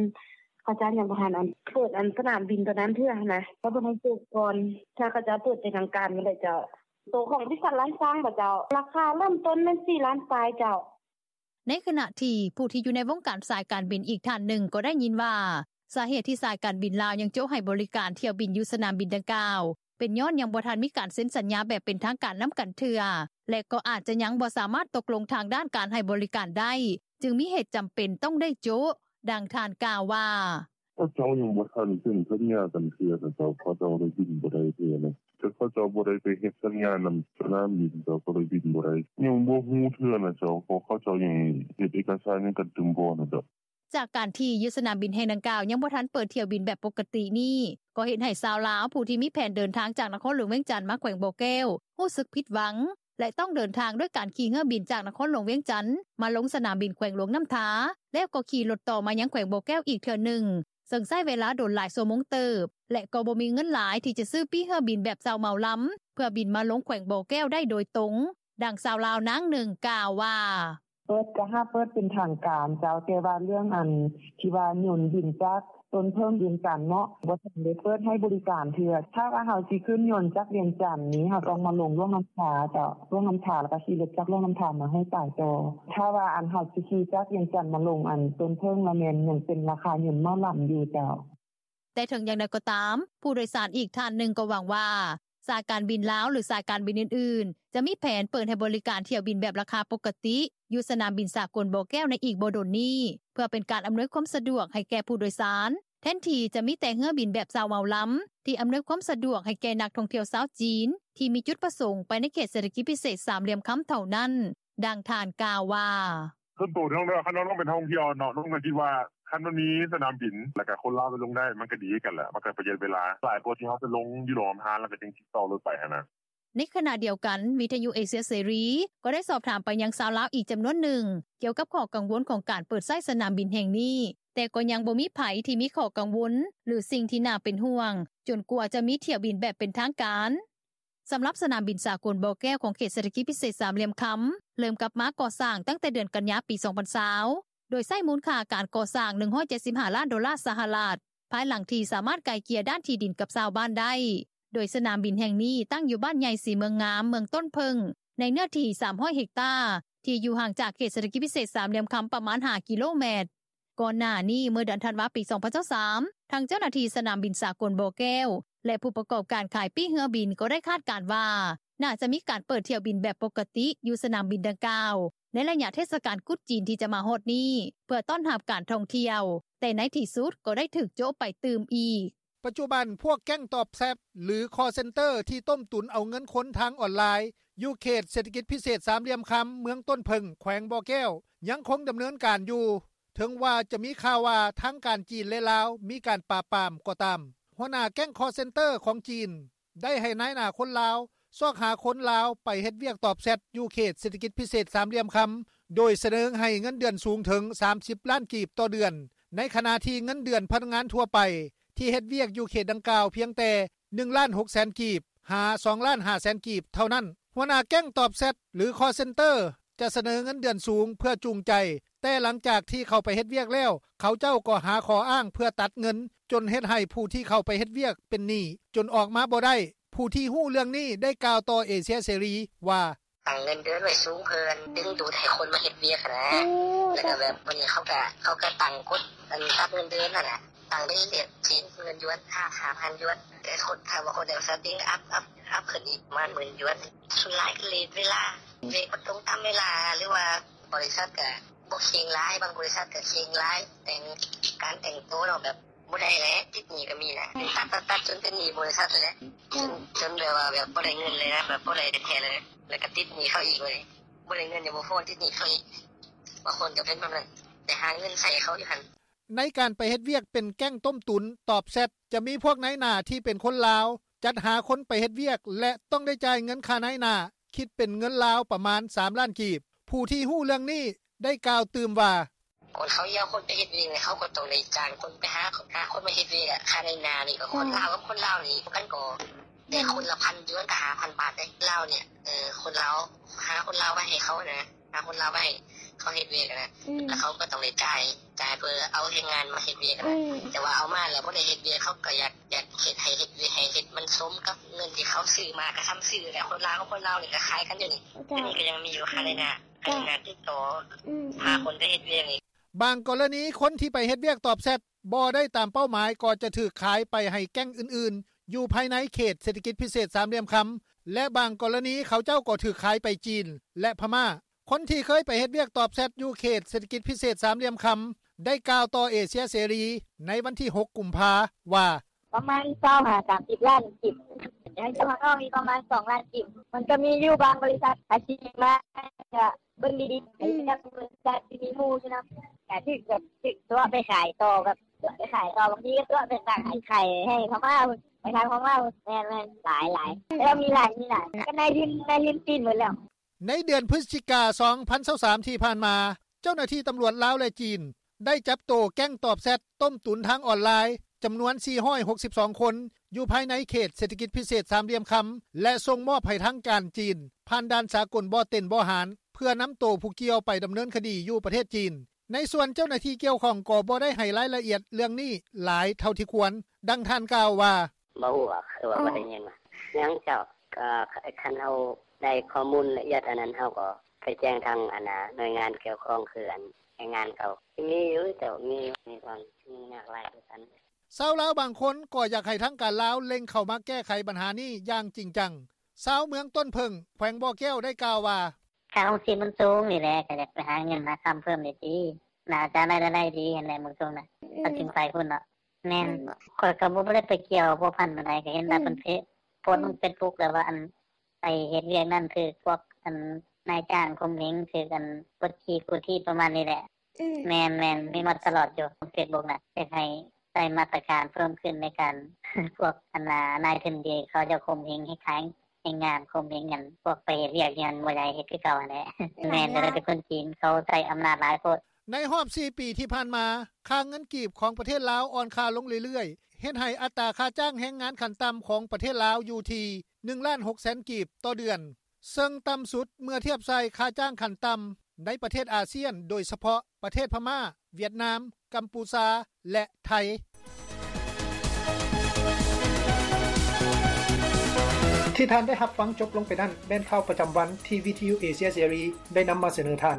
ເຂົາເຈົ້າຍັງບໍ່ທັນ ອັນ ເປີດ ອັນ ສະໜາມບິນໂຕນັ້ນເທື່ອຫັ້ນນະ ເຂົາເພິ່ນໃຫ້ໂຈະກ່ອນ ຖ້າເຂົາເຈົ້າເປີດເປັນທາງການມື້ໃດເຈົ້າ. ໂຕຂອງບໍລິສັດລ້ານຊ້າງບໍເຈົ້າ? ລາຄາເລີ່ມຕົ້ນແມ່ນສີ່ລ້ານປາຍເຈົ້າ.” ໃນຂະນະທີ່ຜູ້ທີ່ຢູ່ໃນວົງການສາຍການບິນອີກທ່ານໜຶ່ງກໍໄດ້ຍິນວ່າ ສາເຫດທີ່ສາຍການບິນລາວຍັງໂຈະໃຫ້ບໍລິການຖ້ຽວບິນຢູ່ສະໜາມບິນດັ່ງກ່າວ ເປັນຍ້ອນຍັງບໍ່ທັນມີການເຊັນສັນຍາແບບເປັນທາງການນຳກັນເທື່ອ ແລະ ກໍອາດຍັງບໍ່ສາມາດຕົກລົງທາງດ້ານການໃຫ້ບໍລິການໄດ້ ຈຶ່ງມີເຫດຈຳເປັນຕ້ອງໄດ້ໂຈະ. ດັ່ງທ່ານກ່າວວ່າ: “ເຂົາເຈົ້າຍັງບໍ່ທັນເຊັນສັນຍາກັນເທື່ອເຂົາເຈົ້າ ເຂົາເຈົ້າເລີຍບິນບໍ່ໄດ້ເທື່ອ ເຂົາເຈົ້າບໍ່ໄດ້ໄປເຮັດສັນຍານຳສະໜາມບິນ ເຂົາເຈົ້າເລີຍບິນບໍ່ໄດ້ ຍັງບໍ່ຮູ້ເທື່ອນ່າເຈົ້າ ເພາະເຂົາເຈົ້າຍັງເຮັດເອກະສານຫຍັງກັນຕື່ມບໍ່ນ່າເຈົ້າ.” ຈາກການທີ່ຢູ່ສະໜາມບິນແຫ່ງດັ່ງກ່າວ ຍັງບໍ່ທັນເປີດຖ້ຽວບິນແບບປົກກະຕິນີ້ ກໍເຮັດໃຫ້ຊາວລາວຜູ້ທີ່ມີແຜນເດີນທາງຈາກນະຄອນຫຼວງວຽງຈັນມາແຂວງບໍ່ແກ້ວ ຮູ້ສຶກຜິດຫວັງ ແລະ ຕ້ອງເດີນທາງດ້ວຍການຂີ່ເຮືອບິນຈາກນະຄອນຫຼວງວຽງຈັນ ມາລົງສະໜາມບິນແຂວງຫຼວງນໍ້າທາ ແລ້ວກໍຂີ່ລົດຕໍ່ມາຍັງແຂວງບໍ່ແກ້ວອີກເທື່ອໜຶ່ງ ເຊິ່ງໃຊ້ເວລາດົນຫຼາຍຊົ່ວໂມງເຕີບ ແລະ ກໍບໍ່ມີເງິນຫຼາຍທີ່ຈະຊື້ປີ້ເຮືອບິນແບບເຊົ່າເໝົາລຳ ເພື່ອບິນມາລົງແຂວງບໍ່ແກ້ວໄດ້ໂດຍຕົງ. ດັ່ງຊາວລາວນາງໜຶ່ງກ່າວວ່າ: “ເປີດກະຫາເປີດເປັນທາງການເຈົ້າ ແຕ່ວ່າເລື່ອງອັນທີ່ວ່າຍົນບິນຈາກຕົ້ນເຜິ້ງວຽງຈັນເນາະ ບໍ່ທັນໄດ້ເປີດໃຫ້ບໍລິການເທື່ອ ຖ້າວ່າເຮົາຊິຂຶ້ນຍົນຈາກວຽງຈັນນີ້ ເຮົາຕ້ອງມາລົງຫຼວງນໍ້າທາເຈົ້າ ຫຼວງນໍ້າທາ ແລ້ວກໍຂີ່ລົດຈາກຫຼວງນໍ້າທາມາໃຫ້ສາຍຕໍ່ ຖ້າວ່າອັນເຮົາຊິຂີ່ຈາກວຽງຈັນມາລົງອັນຕົ້ນເຜິ້ງລະແມ່ນຍັງເປັນລາຄາຍົນເໝົາລຳຢູ່ເຈົ້າ.” ແຕ່ເຖິງຢ່າງໃດກໍຕາມ ຜູ້ໂດຍສານອີກທ່ານໜຶ່ງກໍຫວັງວ່າ ສາຍການບິນລາວ ຫຼື ສາຍການບິນອື່ນໆ ຈະມີແຜນເປີດໃຫ້ບໍລິການຖ້ຽວບິນແບບລາຄາປົກກະຕິ ຢູ່ສະໜາມບິນສາກົນບໍ່ແກ້ວໃນອີກບໍ່ດົນນີ້ ເພື່ອເປັນການອຳນວຍຄວາມສະດວກໃຫ້ແກ່ຜູ້ໂດຍສານ ແທນທີ່ຈະມີແຕ່ເຮືອບິນແບບເຊົ່າເໝົາລຳ ທີ່ອຳນວຍຄວາມສະດວກໃຫ້ແກ່ນັກທ່ອງທ່ຽວຊາວຈີນ ທີ່ມີຈຸດປະສົງໄປໃນເຂດເສດຖະກິດພິເສດສາມຫຼ່ຽມຄຳເທົ່ານັ້ນ. ດັ່ງທ່ານກ່າວວ່າ: “ສ່ວນໂຕນ້ອງເດີ ຄັນວ່ານ້ອງເປັນນັກທ່ອງທ່ຽວເນາະ ນ້ອງກໍຄິດວ່າ ຄັນມັນມີສະໜາມບິນ ແລ້ວກໍຄົນລາວໄປລົງໄດ້ ມັນກໍດີຄືກັນແຫຼະ ມັນກໍປະຢັດເວລາ ຫຼາຍກວ່າທີ່ເຮົາໄປລົງຢູ່ຫຼວງນໍ້າທາ ແລ້ວກໍຈຶ່ງຕິດຕໍ່ລົດໄປຫັ້ນນະ.” ໃນຂະນະດຽວກັນ ວິທຍຸເອເຊຍເສລີ ກໍໄດ້ສອບຖາມໄປຍັງຊາວລາວອີກຈຳນວນໜຶ່ງ ກ່ຽວກັບຂໍ້ກັງວົນຂອງການເປີດໃຊ້ສະໜາມບິນແຫ່ງນີ້ ແຕ່ກໍຍັງບໍ່ມີໃຜທີ່ມີຂໍ້ກັງວົນ ຫຼື ສິ່ງທີ່ໜ້າເປັນຫ່ວງ ຈົນກວ່າຈະມີຖ້ຽວບິນແບບເປັນທາງການ. ສຳລັບສະໜາມບິນສາກົນບໍ່ແກ້ວ ຂອງເຂດເສດຖະກິດພິເສດສາມຫຼ່ຽມຄຳ ເລີ່ມກັບມາກໍ່ສ້າງຕັ້ງແຕ່ເດືອນກັນຍາ ປີສອງພັນຊາວ ໂດຍໃຊ້ມູນຄ່າການກໍ່ສ້າງ ໜຶ່ງຮ້ອຍເຈັດສິບຫ້າລ້ານໂດລາສະຫະລັດ ພາຍຫຼັງທີ່ສາມາດໄກ່ເກ່ຍດ້ານທີ່ດິນກັບຊາວບ້ານໄດ້ ໂດຍສະໜາມບິນແຫ່ງນີ້ຕັ້ງຢູ່ບ້ານໃຫຍ່ສີເມືອງງາມ ເມືອງຕົ້ນເຜິ້ງ ໃນເນື້ອທີ່ສາມຮ້ອຍເຮັກຕາ ທີ່ຢູ່ຫ່າງຈາກເຂດເສດຖະກິດພິເສດສາມຫຼ່ຽມຄຳປະມານຫ້າກິໂລແມັດ. ກ່ອນໜ້ານີ້ ເມື່ອເດືອນທັນວາ ປີສອງພັນຊາວສາມ ທາງເຈົ້າໜ້າທີ່ສະໜາມບິນສາກົນບໍ່ແກ້ວ ແລະ ຜູ້ປະກອບການຂາຍປີ້ເຮືອບິນ ກໍໄດ້ຄາດການວ່າ ໜ້າຈະມີການເປີດຖ້ຽວບິນແບບປົກກະຕິ ຢູ່ສະໜາມບິນດັ່ງກ່າວ ໃນໄລຍະເທດສະການກຸດຈີນທີ່ຈະມາຮອດນີ້ ເພື່ອຕ້ອນຮັບການທ່ອງທ່ຽວ ແຕ່ໃນທີ່ສຸດກໍໄດ້ຖືກໂຈະໄປຕື່ມອີກ. ປັດຈຸບັນ ພວກແກ້ງຕອບແຊັດ ຫຼື ຄອລເຊັນເຕີ ທີ່ຕົ້ມຕຸນເອົາເງິນຄົນທາງອອນລາຍ ຢູ່ເຂດເສດຖະກິດພິເສດສາມຫຼ່ຽມຄຳ ເມືອງຕົ້ນເຜິ້ງ ແຂວງບໍ່ແກ້ວ ຍັງຄົງດຳເນີນການຢູ່ ເຖິງວ່າຈະມີຂ່າວວ່າ ທາງການຈີນ ແລະ ລາວ ມີການປາບປາມກໍຕາມ. ຫົວໜ້າແກ້ງຄອລເຊັນເຕີຂອງຈີນ ໄດ້ໃຫ້ນາຍໜ້າຄົນລາວ ຊອກຫາຄົນລາວໄປເຮັດວຽກຕອບແຊັດ ຢູ່ເຂດເສດຖະກິດພິເສດສາມຫຼ່ຽມຄຳ ໂດຍສະເໜີໃຫ້ເງິນເດືອນສູງເຖິງສາມສິບລ້ານກີບຕໍ່ເດືອນ ໃນຂະນະທີ່ເງິນເດືອນພະນັກງານທົ່ວໄປ ທີ່ເຮັດວຽກຢູ່ເຂດດັ່ງກ່າວ ພຽງແຕ່ໜຶ່ງລ້ານຫົກແສນກີບ ຫາ ສອງລ້ານຫ້າແສນກີບເທົ່ານັ້ນ. ຫົວໜ້າແກ້ງຕອບແຊັດ ຫຼື ຄອລເຊັນເຕີ ຈະສະເໜີເງິນເດືອນສູງເພື່ອຈູງໃຈ, ແຕ່ຫຼັງຈາກທີ່ເຂົ້າໄປເຮັດວຽກແລ້ວ ເຂົາເຈົ້າກໍຫາຂໍ້ອ້າງເພື່ອຕັດເງິນ ຈົນເຮັດໃຫ້ຜູ້ທີ່ເຂົ້າໄປເຮັດວຽກເປັນໜີ້ ຈົນອອກມາບໍ່ໄດ້. ຜູ້ທີ່ຮູ້ເລື່ອງນີ້ໄດ້ກ່າວຕໍ່ເອເຊຍເສລີວ່າ: “ຕັ້ງເງິນເດືອນໄວ້ສູງ ເພື່ອດຶງດູດໃຫ້ຄົນມາເຮັດວຽກຫັ້ນນະ ແລ້ວກໍແບບ ບາດນີ້ເຂົາກໍ ເຂົາກໍຕັ້ງກົດ ອັນ ປັບເງິນເດືອນຫັ້ນນະ ຕັ້ງໄປເລື້ອຍໆ ສີ່ພັນຢວນ ຫ້າພັນຢວນ ແຕ່ຄົນ ຖ້າວ່າຄົນໃດວ່າສະຕິງ ອັບ ອັບ ອັບຂຶ້ນອີກປະມານໝື່ນຢວນ. ສ່ວນຫຼາຍກໍເລດເວລາ ເລດບໍ່ຕົງຕາມເວລາ ຫຼືວ່າບໍລິສັດກໍບໍ່ເຄັ່ງຫຼາຍ ບາງບໍລິສັດກໍເຄັ່ງຫຼາຍ ແຕ່ງ ການແຕ່ງໂຕເນາະ ແບບບໍ່ໄດ້ແຫຼະ ຕິດໜີ້ກໍມີນະ ຕັດໆໆ ຈົນເປັນໜີ້ບໍລິສັດຫັ້ນແຫຼະ ຈົນ ຈົນແບບວ່າ ແບບບໍ່ໄດ້ເງິນເລີຍນະ ແບບບໍ່ໄດ້ແທ້ໆເລີຍ ແລ້ວກໍຕິດໜີ້ເຂົາອີກ ບາດນີ້ບໍ່ໄດ້ເງິນຍັງບໍ່ພໍ ຕິດໜີ້ເຂົາອີກ ບາງຄົນກໍເປັນແບບນັ້ນ ໄປຫາເງິນໃຊ້ເຂົາຢູ່ຫັ້ນ.” ໃນການໄປເຮັດວຽກເປັນແກ້ງຕົ້ມຕຸນ ຕອບແຊັດ ຈະມີພວກນາຍໜ້າທີ່ເປັນຄົນລາວ ຈັດຫາຄົນໄປເຮັດວຽກ ແລະ ຕ້ອງໄດ້ຈ່າຍເງິນຄ່ານາຍໜ້າ ຄິດເປັນເງິນລາວປະມານສາມລ້ານກີບ. ຜູ້ທີ່ຮູ້ເລື່ອງນີ້ໄດ້ກ່າວຕື່ມວ່າ: “ຄົນເຂົາເອົາຄົນໄປເຮັດວຽກນີ້ ເຂົາກໍຕ້ອງໄດ້ຈ້າງຄົນໄປຫາ ຫາຄົນມາເຮັດວຽກ ຄ່ານາຍໜ້ານີ້ ກໍຄົນລາວກັບຄົນລາວນີ້ ມັນກໍໄດ້ຄົນລະພັນຢວນ ກໍຫ້າພັນບາດເດ້ ລາວນີ້ ເອີ ຄົນລາວ ຫາຄົນລາວໄປໃຫ້ເຂົານະ ຫາຄົນລາວໄປໃຫ້ເຂົາເຮັດວຽກນະ ແລ້ວເຂົາກໍຕ້ອງໄດ້ຈ່າຍ ຈ່າຍເພື່ອເອົາແຮງງານມາເຮັດວຽກນະ ແຕ່ວ່າເອົາມາແລ້ວບໍ່ໄດ້ເຮັດວຽກ ເຂົາກໍຢາກ ຢາກເຮັດໃຫ້ເຮັດວຽກ ໃຫ້ເຮັດມັນສົມກັບເງິນທີ່ເຂົາຊື້ມາ ກໍສ່ຳຊື້ແຫຼະ ຄົນລາວກັບຄົນລາວນີ້ກໍຂາຍກັນຢູ່ນີ້ ດຽວນີ້ກໍຍັງມີຢູ່ ຄ່ານາຍໜ້າ ຄ່ານາຍໜ້າຕິດຕໍ່ ຫາຄົນໄປເຮັດວຽກນີ້.” ບາງກໍລະນີ ຄົນທີ່ໄປເຮັດວຽກຕອບແຊັດ ບໍ່ໄດ້ຕາມເປົ້າໝາຍ ກໍຈະຖືກຂາຍໄປໃຫ້ແກ້ງອື່ນ ຢູ່ພາຍໃນເຂດເສດຖະກິດພິເສດສາມຫຼ່ຽມຄຳ ແລະ ບາງກໍລະນີເຂົາເຈົ້າກໍຖືກຂາຍໄປຈີນ ແລະ ພະມ້າ. ຄົນທີ່ເຄີຍໄປເຮັດວຽກຕອບແຊັດຢູ່ເຂດເສດຖະກິດພິເສດສາມຫຼ່ຽມຄຳ ໄດ້ກ່າວຕໍ່ເອເຊຍເສລີໃນວັນທີຫົກ ກຸມພາ ວ່າ: ປະມານຊາວຫ້າ ສາມສິບລ້ານກີບ ຍັງຈະມາອອກອີກປະມານສອງລ້ານກີບ ມັນກໍມີຢູ່ບາງບໍລິສັດ ອາຊີບມາ ກະເບິ່ງດີໆ ອືມ ກະມີໝູ່ຢູ່ນຳ ກະຖືກແບບ ຖືກຕົວະໄປຂາຍຕໍ່ ແບບຕົວະໄປຂາຍຕໍ່ ບາງທີກໍຕົວະໄປຂາຍ ໄປຂາຍໃຫ້ພະມ້າພຸ້ນ ໄປທາງພະມ້າພຸ້ນ ແມ່ນໆ ຫຼາຍໆ ແລ້ວມີຫຼາຍ ມີຫຼາຍ ກໍນາຍທຶນ ນາຍທຶນຈີນໝົດແລ້ວ. ໃນເດືອນພຶສຈິກາ ສອງພັນຊາວສາມ ທີ່ຜ່ານມາ ເຈົ້າໜ້າທີ່ຕຳຫຼວດລາວ ແລະ ຈີນ ໄດ້ຈັບໂຕແກ້ງຕອບແຊັດຕົ້ມຕຸນທາງອອນລາຍ ຈຳນວນ ສີ່ຮ້ອຍຫົກສິບສອງຄົນ ຢູ່ພາຍໃນເຂດເສດຖະກິດພິເສດສາມຫຼ່ຽມຄຳ ແລະ ສົ່ງມອບໃຫ້ທາງການຈີນ ຜ່ານດ່ານສາກົນບໍ່ເຕັນບໍ່ຫານ ເພື່ອນຳໂຕຜູ້ກ່ຽວໄປດຳເນີນຄະດີຢູ່ປະເທດຈີນ. ໃນສ່ວນເຈົ້າໜ້າທີ່ກ່ຽວຂ້ອງກໍບໍ່ໄດ້ໃຫ້ລາຍລະອຽດເລື່ອງນີ້ຫຼາຍເທົ່າທີ່ຄວນ. ດັ່ງທ່ານກ່າວວ່າ: ບໍ່ຮູ້ວ່າ ຄືວ່າ ອືມ ບໍ່ໄດ້ຍິນວ່າ ຍັງເຈົ້າ ກໍຄັນເຮົາໄດ້ຂໍ້ມູນລະອຽດອັນນັ້ນ ເຮົາກໍໄປແຈ້ງທາງ ອັນນ່າ ໜ່ວຍງານກ່ຽວຂ້ອງ ຄືອັນແຮງງານເຂົາ ມີຢູ່ ເຈົ້າ ມີຢູ່ ມີຄວາມຫຍຸ້ງຍາກຫຼາຍຄືກັນ. ຊາວລາວບາງຄົນກໍຢາກໃຫ້ທາງການລາວເລັ່ງເຂົ້າມາແກ້ໄຂບັນຫານີ້ຢ່າງຈິງຈັງ. ຊາວເມືອງຕົ້ນເຜິ້ງ ແຂວງບໍ່ແກ້ວ ໄດ້ກ່າວວ່າ: ຄ່າຄອງຊີບມັນສູງນີ້ແຫຼະ ກໍຢາກໄປຫາເງິນຫາຄຳເພີ່ມນີ້ຕິ ໜ້າຈະໄດ້ລາຍໄດ້ດີຫັ້ນແຫຼະ ເມືອງສູງນະ ອືມ ກໍຈຶ່ງໄປພຸ້ນເນາະ. ແມ່ນ ແມ່ນບໍ່? ຂ້ອຍກໍບໍ່ ບໍ່ໄດ້ໄປກ່ຽວພົວພັນປານໃດ ກໍເຫັນແຕ່ ອືມ ເພິ່ນເພ ໂພສລົງ ອືມ ເຟສບຸກ ແລ້ວວ່າ ອັນ ໄປເຮັດວຽກນັ້ນ ຖືກພວກ ອັນ ນາຍຈ້າງຂົ່ມເຫງ ຖືກ ອັນ ກົດຂີ່ກູດຖີບ ປະມານນີ້ແຫຼະ. ອືມ ແມ່ນໆ ມີມາຕະຫຼອດຢູ່ ເຟສບຸກນະ ຢາກໃຫ້ໃສ່ມາດຕະການເພີ່ມຂຶ້ນໃນການ ພວກ ອັນນ່າ ນາຍທຶນທີ່ເຂົາເຈົ້າຂົ່ມເຫງໃຫ້ຂາຍແຮງງານ ຂົ່ມເຫງຫຍັງ ພວກໄປເຮັດວຽກຫຍັງບໍ່ຢາກເຮັດຄືເກົ່າຫັ້ນແຫຼະ. ແມ່ນ ແລ້ວກໍເປັນຄົນຈີນ ເຂົາໃຊ້ອຳນາດຫຼາຍໂພດ. ໃນຮອບສີ່ປີທີ່ຜ່ານມາ ຄ່າເງິນກີບຂອງປະເທດລາວອ່ອນຄ່າລົງເລື້ອຍໆ ເຮັດໃຫ້ອັດຕາຄ່າຈ້າງແຮງງານຂັ້ນຕ່ຳຂອງປະເທດລາວຢູ່ທີ່ ໜຶ່ງລ້ານຫົກແສນກີບຕໍ່ເດືອນ ເຊິ່ງຕ່ຳສຸດເມື່ອທຽບໃສ່ຄ່າຈ້າງຂັ້ນຕ່ຳໃນປະເທດອາຊຽນ ໂດຍສະເພາະປະເທດພະມ້າ, ຫວຽດນາມ, ກຳປູຊາ ແລະ ໄທ. ທີ່ທ່ານໄດ້ຮັບຟັງຈົບລົງໄປນັ້ນ ແມ່ນຂ່າວປະຈຳວັນທີ່ວິທະຍຸເອເຊຍເສລີໄດ້ນຳມາສະເໜີທ່ານ.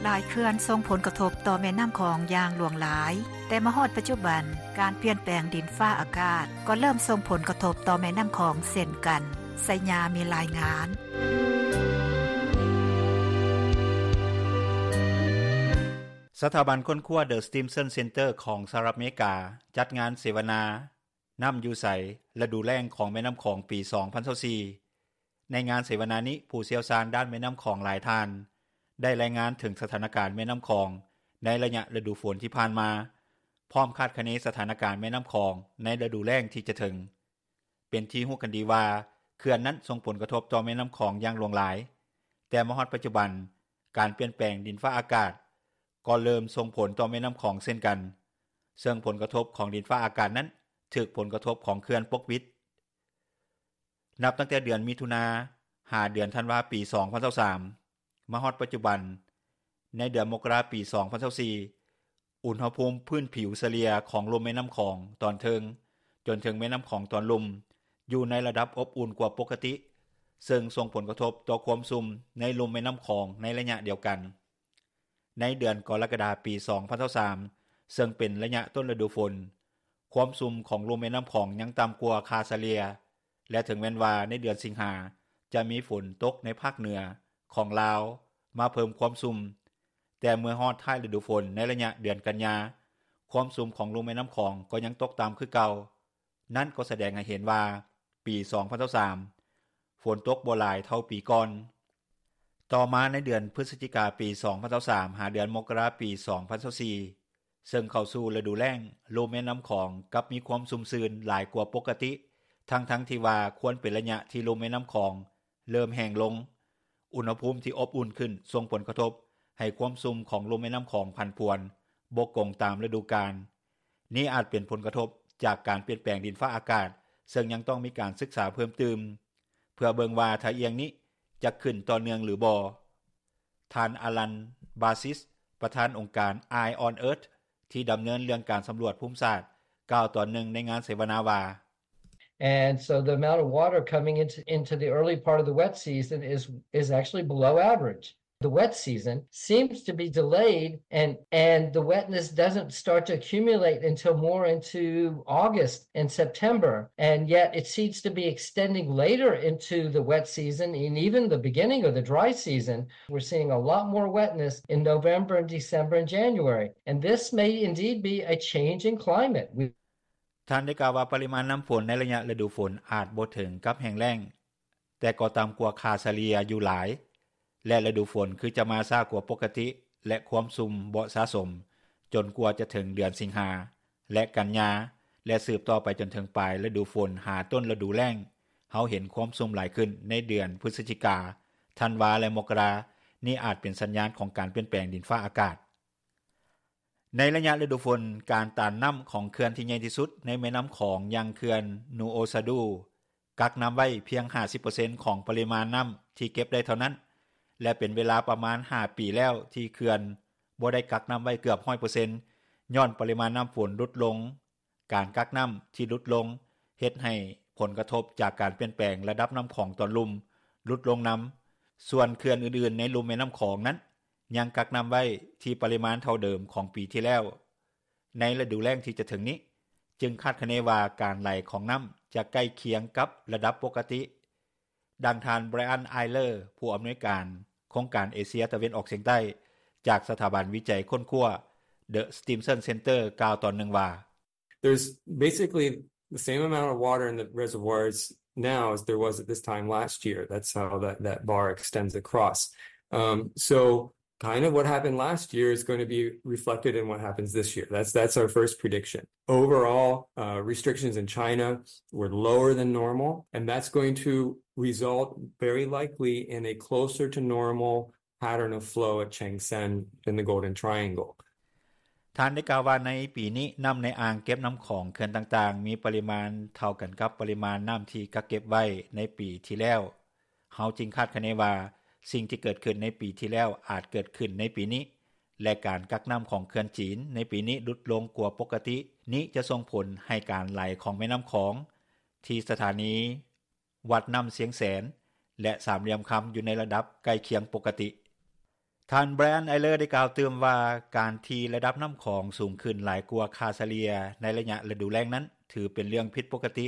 ຫຼາຍເຂື່ອນສົ່ງຜົນກະທົບຕໍ່ແມ່ນ້ຳຂອງຢ່າງຫຼວງຫຼາຍ, ແຕ່ມາຮອດປັດຈຸບັນ, ການປ່ຽນແປງດິນຟ້າອາກາດກໍເລີ່ມສົ່ງຜົນກະທົບຕໍ່ແມ່ນ້ຳຂອງເຊັ່ນກັນ. ໄຊຍາມີລາຍງານ. ສະຖາບັນຄົ້ນຄວ້າ The Stimson Center ຂອງສະຫະລັດອາເມລິກາ ຈັດງານເສວະນາ ນ້ຳຢູ່ໃສ? ລະດູແລ້ງຂອງແມ່ນ້ຳຂອງ ປີສອງພັນຊາວສີ່. ໃນງານເສວະນານີ້, ຜູ້ຊ່ຽວຊານດ້ານແມ່ນ້ຳຂອງຫຼາຍທ່ານ ໄດ້ລາຍງານເຖິງສະຖານະການແມ່ນ້ຳຂອງໃນໄລຍະລະດູຝົນທີ່ຜ່ານມາ, ພ້ອມຄາດຄະເນສະຖານະການແມ່ນ້ຳຂອງໃນລະດູແລ້ງທີ່ຈະເຖິງ. ເປັນທີ່ຮູ້ກັນດີວ່າ ເຂື່ອນນັ້ນສົ່ງຜົນກະທົບຕໍ່ແມ່ນ້ຳຂອງຢ່າງຫຼວງຫຼາຍ, ແຕ່ມາຮອດປັດຈຸບັນ, ການປ່ຽນແປງດິນຟ້າອາກາດກໍເລີ່ມສົ່ງຜົນຕໍ່ແມ່ນ້ຳຂອງເຊັ່ນກັນ, ເຊິ່ງຜົນກະທົບຂອງດິນຟ້າອາກາດນັ້ນຖືກຜົນກະທົບຂອງເຂື່ອນປົກປິດ. ນັບຕັ້ງແຕ່ເດືອນມິຖຸນາ ຫາເດືອນທັນວາ ປີສອງພັນຊາວສາມ ມາຮອດປັດຈຸບັນ, ໃນເດືອນມົກກະລາ ປີສອງພັນຊາວສີ່ ອຸນຫະພູມພື້ນຜິວສະເລ່ຍຂອງລຸ່ມແມ່ນ້ຳຂອງຕອນເທິງ ຈົນເຖິງແມ່ນ້ຳຂອງຕອນລຸ່ມ ຢູ່ໃນລະດັບອົບອຸ່ນກວ່າປົກກະຕິ, ເຊິ່ງສົ່ງຜົນກະທົບຕໍ່ຄວາມຊຸ່ມໃນລຸ່ມແມ່ນ້ຳຂອງໃນໄລຍະດຽວກັນ. ໃນເດືອນກໍລະກະດາ ປີສອງພັນຊາວສາມ ເຊິ່ງເປັນໄລຍະຕົ້ນລະດູຝົນ, ຄວາມຊຸ່ມຂອງລຸ່ມແມ່ນ້ຳຂອງຍັງຕ່ຳກວ່າຄ່າສະເລ່ຍ ແລະ ເຖິງແມ່ນວ່າໃນເດືອນສິງຫາ ຈະມີຝົນຕົກໃນພາກເໜືອຂອງລາວມາເພີ່ມຄວາມຊຸ່ມ, ແຕ່ເມື່ອຮອດທ້າຍລະດູຝົນໃນໄລຍະເດືອນກັນຍາ, ຄວາມຊຸ່ມຂອງລຸ່ມແມ່ນ້ຳຂອງກໍຍັງຕົກຕ່ຳຄືເກົ່າ. ນັ້ນກໍສະແດງໃຫ້ເຫັນວ່າ ປີສອງພັນຊາວສາມ ຝົນຕົກບໍ່ຫຼາຍເທົ່າປີກ່ອນ. ຕໍ່ມາໃນເດືອນພຶສຈິກາ ປີສອງພັນຊາວສາມ ຫາເດືອນມົກກະລາ ປີສອງພັນຊາວສີ່ ເຊິ່ງເຂົ້າສູ່ລະດູແລ້ງ, ລຸ່ມແມ່ນ້ຳຂອງກັບມີຄວາມຊຸ່ມຊື່ນຫຼາຍກວ່າປົກກະຕິ, ທັງໆທີ່ວ່າຄວນເປັນໄລຍະທີ່ລຸ່ມແມ່ນ້ຳຂອງເລີ່ມແຫ້ງລົງ. ອຸນຫະພູມທີ່ອົບອຸ່ນຂຶ້ນສົ່ງຜົນກະທົບໃຫ້ຄວາມຊຸ່ມຂອງລຸ່ມແມ່ນ້ຳຂອງຜັນຜວນບໍ່ກົງຕາມລະດູການ. ນີ້ອາດເປັນຜົນກະທົບຈາກການປ່ຽນແປງດິນຟ້າອາກາດ, ເຊິ່ງຍັງຕ້ອງມີການສຶກສາເພີ່ມຕື່ມ ເພື່ອເບິ່ງວ່າທ່າອ່ຽງນີ້ຈະຂຶ້ນຕໍ່ເນື່ອງຫຼືບໍ່. ທ່ານ ອາລັນ ບາຊິສ ປະທານອົງການ Eye on Earth ທີ່ດຳເນີນເລື່ອງການສຳຫຼວດພູມສາດ ກ່າວຕອນໜຶ່ງໃນງານເສວະນາວ່າ: And so the amount of water coming into, into the early part of the wet season is, is actually below average. The wet season seems to be delayed, and, and the wetness doesn't start to accumulate until more into August and September. And yet it seems to be extending later into the wet season and even the beginning of the dry season. We're seeing a lot more wetness in November and December and January. And this may indeed be a change in climate. We ທ່ານໄດ້ກ່າວວ່າ ປະລິມານນ້ຳຝົນໃນໄລຍະລະດູຝົນອາດບໍ່ເຖິງກັບແຫ້ງແລ້ງ, ແຕ່ກໍຕ່ຳກວ່າຄ່າສະເລ່ຍຢູ່ຫຼາຍ ແລະ ລະດູຝົນຄືຈະມາຊ້າກວ່າປົກກະຕິ ແລະ ຄວາມຊຸ່ມບໍ່ສະສົມ ຈົນກວ່າຈະເຖິງເດືອນສິງຫາ ແລະ ກັນຍາ ແລະ ສືບຕໍ່ໄປຈົນເຖິງປາຍລະດູຝົນຫາຕົ້ນລະດູແລ້ງ. ເຮົາເຫັນຄວາມຊຸ່ມຫຼາຍຂຶ້ນໃນເດືອນພຶສຈິກາ, ທັນວາ ແລະ ມົກກະລາ. ນີ້ອາດເປັນສັນຍານຂອງການປ່ຽນແປງດິນຟ້າອາກາດ. ໃນໄລຍະລະດູຝົນ, ການຕັນນ້ຳຂອງເຂື່ອນທີ່ໃຫຍ່ທີ່ສຸດໃນແມ່ນ້ຳຂອງ ຢ່າງເຂື່ອນນູໂອຊາດູ ກັກນ້ຳໄວ້ພຽງຫ້າສິບເປີເຊັນຂອງປະລິມານນ້ຳທີ່ເກັບໄດ້ເທົ່ານັ້ນ ແລະ ເປັນເວລາປະມານຫ້າປີແລ້ວທີ່ເຂື່ອນບໍ່ໄດ້ກັກນ້ຳໄວ້ເກືອບຮ້ອຍເປີເຊັນ ຍ້ອນປະລິມານນ້ຳຝົນຫຼຸດລົງ. ການກັກນ້ຳທີ່ຫຼຸດລົງເຮັດໃຫ້ຜົນກະທົບຈາກການປ່ຽນແປງລະດັບນ້ຳຂອງຕອນລຸ່ມຫຼຸດລົງນຳ. ສ່ວນເຂື່ອນອື່ນໆໃນລຸ່ມແມ່ນ້ຳຂອງນັ້ນ ຍັງກັກນ້ຳໄວ້ທີ່ປະລິມານເທົ່າເດີມຂອງປີທີ່ແລ້ວ. ໃນລະດູແລ້ງທີ່ຈະເຖິງນີ້, ຈຶ່ງຄາດຄະເນວ່າການໄຫຼຂອງນ້ຳຈະໃກ້ຄຽງກັບລະດັບປົກກະຕິ. ດັ່ງທ່ານ Brian Eyler ຜູ້ອຳນວຍການໂຄງການເອເຊຍຕາເວັນອອກສຽງໃຕ້ ຈາກສະຖາບັນວິໄຈຄົ້ນຄວ້າ The Stimson Center ກ່າວຕອນໜຶ່ງວ່າ: There's basically the same amount of water in the reservoirs now as there was at this time last year. That's how that, that bar extends across. Um, so kind of what happened last year is going to be reflected in what happens this year. That's, that's our first prediction. Overall, uh, restrictions in China were lower than normal, and that's going to result very likely in a closer to normal pattern of flow at Changsan in the Golden Triangle. ທ່ານໄດ້ກ່າວວ່າ ໃນປີນີ້ ນ້ຳໃນອ່າງເກັບນ້ຳຂອງເຂື່ອນຕ່າງໆ ມີປະລິມານເທົ່າກັນກັບປະລິມານນ້ຳທີ່ກັກເກັບໄວ້ໃນປີທີ່ແລ້ວ. ເຮົາຈຶ່ງຄາດຄະເນວ່າ ສິ່ງທີ່ເກີດຂຶ້ນໃນປີທີ່ແລ້ວອາດເກີດຂຶ້ນໃນປີນີ້ ແລະ ການກັກນ້ຳຂອງເຂື່ອນຈີນໃນປີນີ້ຫຼຸດລົງກວ່າປົກກະຕິ. ນີ້ຈະສົ່ງຜົນໃຫ້ການໄຫຼຂອງແມ່ນ້ຳຂອງທີ່ສະຖານີວັດນ້ຳຊຽງແສນ ແລະ ສາມຫຼ່ຽມຄຳ ຢູ່ໃນລະດັບໃກ້ຄຽງປົກກະຕິ. ທ່ານ Brian Eyler ໄດ້ກ່າວຕື່ມວ່າ ການທີ່ລະດັບນ້ຳຂອງສູງຂຶ້ນຫຼາຍກວ່າຄ່າສະເລ່ຍໃນໄລຍະລະດູແລ້ງນັ້ນ ຖືເປັນເລື່ອງຜິດປົກກະຕິ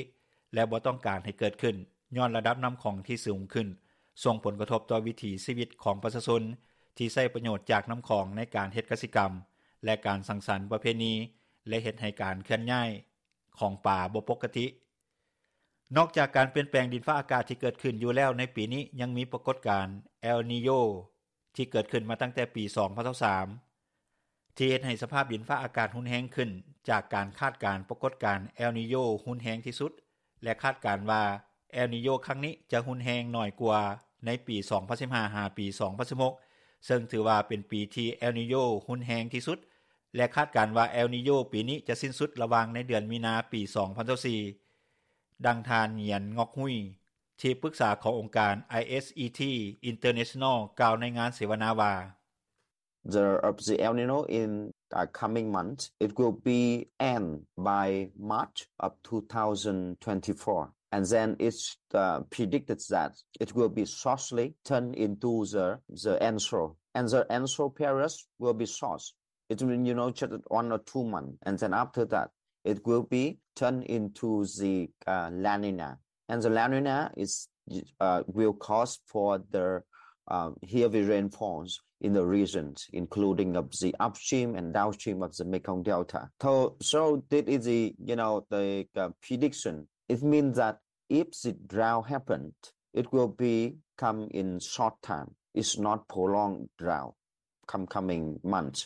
ແລະ ບໍ່ຕ້ອງການໃຫ້ເກີດຂຶ້ນ ຍ້ອນລະດັບນ້ຳຂອງທີ່ສູງຂຶ້ນ ສົ່ງຜົນກະທົບຕໍ່ວິຖີຊີວິດຂອງປະຊາຊົນທີ່ໃຊ້ປະໂຫຍດຈາກນ້ຳຂອງໃນການເຮັດກະສິກຳ ແລະ ການສັງສັນປະເພນີ ແລະ ເຮັດໃຫ້ການເຄື່ອນຍ້າຍຂອງປາບໍ່ປົກກະຕິ. ນອກຈາກການປ່ຽນແປງດິນຟ້າອາກາດທີ່ເກີດຂຶ້ນຢູ່ແລ້ວໃນປີນີ້ ຍັງມີປາກົດການ El Niño ທີ່ເກີດຂຶ້ນມາຕັ້ງແຕ່ປີສອງພັນຊາວສາມ ທີ່ເຮັດໃຫ້ສະພາບດິນຟ້າອາກາດຮຸນແຮງຂຶ້ນ ຈາກການຄາດການປາກົດການ El Niño ຮຸນແຮງທີ່ສຸດ ແລະ ຄາດການວ່າ El Niño ຄັ້ງນີ້ຈະຮຸນແຮງໜ້ອຍກວ່າໃນປີສອງພັນສິບຫ້າ ຫາປີສອງພັນສິບຫົກ ເຊິ່ງຖືວ່າເປັນປີທີ່ El Niño ຮຸນແຮງທີ່ສຸດ ແລະ ຄາດການວ່າ El Niño ປີນີ້ຈະສິ້ນສຸດລະຫວ່າງໃນເດືອນມີນາປີສອງພັນຊາວສີ່. ດັ່ງທ່ານ Nguyen Ngoc Huy ທີ່ປຶກສາຂອງອົງການ ISET International ກ່າວໃນງານເສວະນາວ່າ: The, uh, the El Niño in, uh, coming month, it will be end by March of two thousand twenty-four. And then it's, uh, predicted that it will be shortly turn into the, the El Niño. And the El Niño period will be short. It will, you know, just one or two months. And then after that, it will be turned into the, uh, La Nina. And the La Nina is, uh, will cause for the, uh, heavy rainfalls in the regions, including of the upstream and downstream of the Mekong Delta. So, so this is the, you know, the, uh, prediction. It means that if the drought happened, it will be come in short time. It's not prolonged drought. Come, coming months.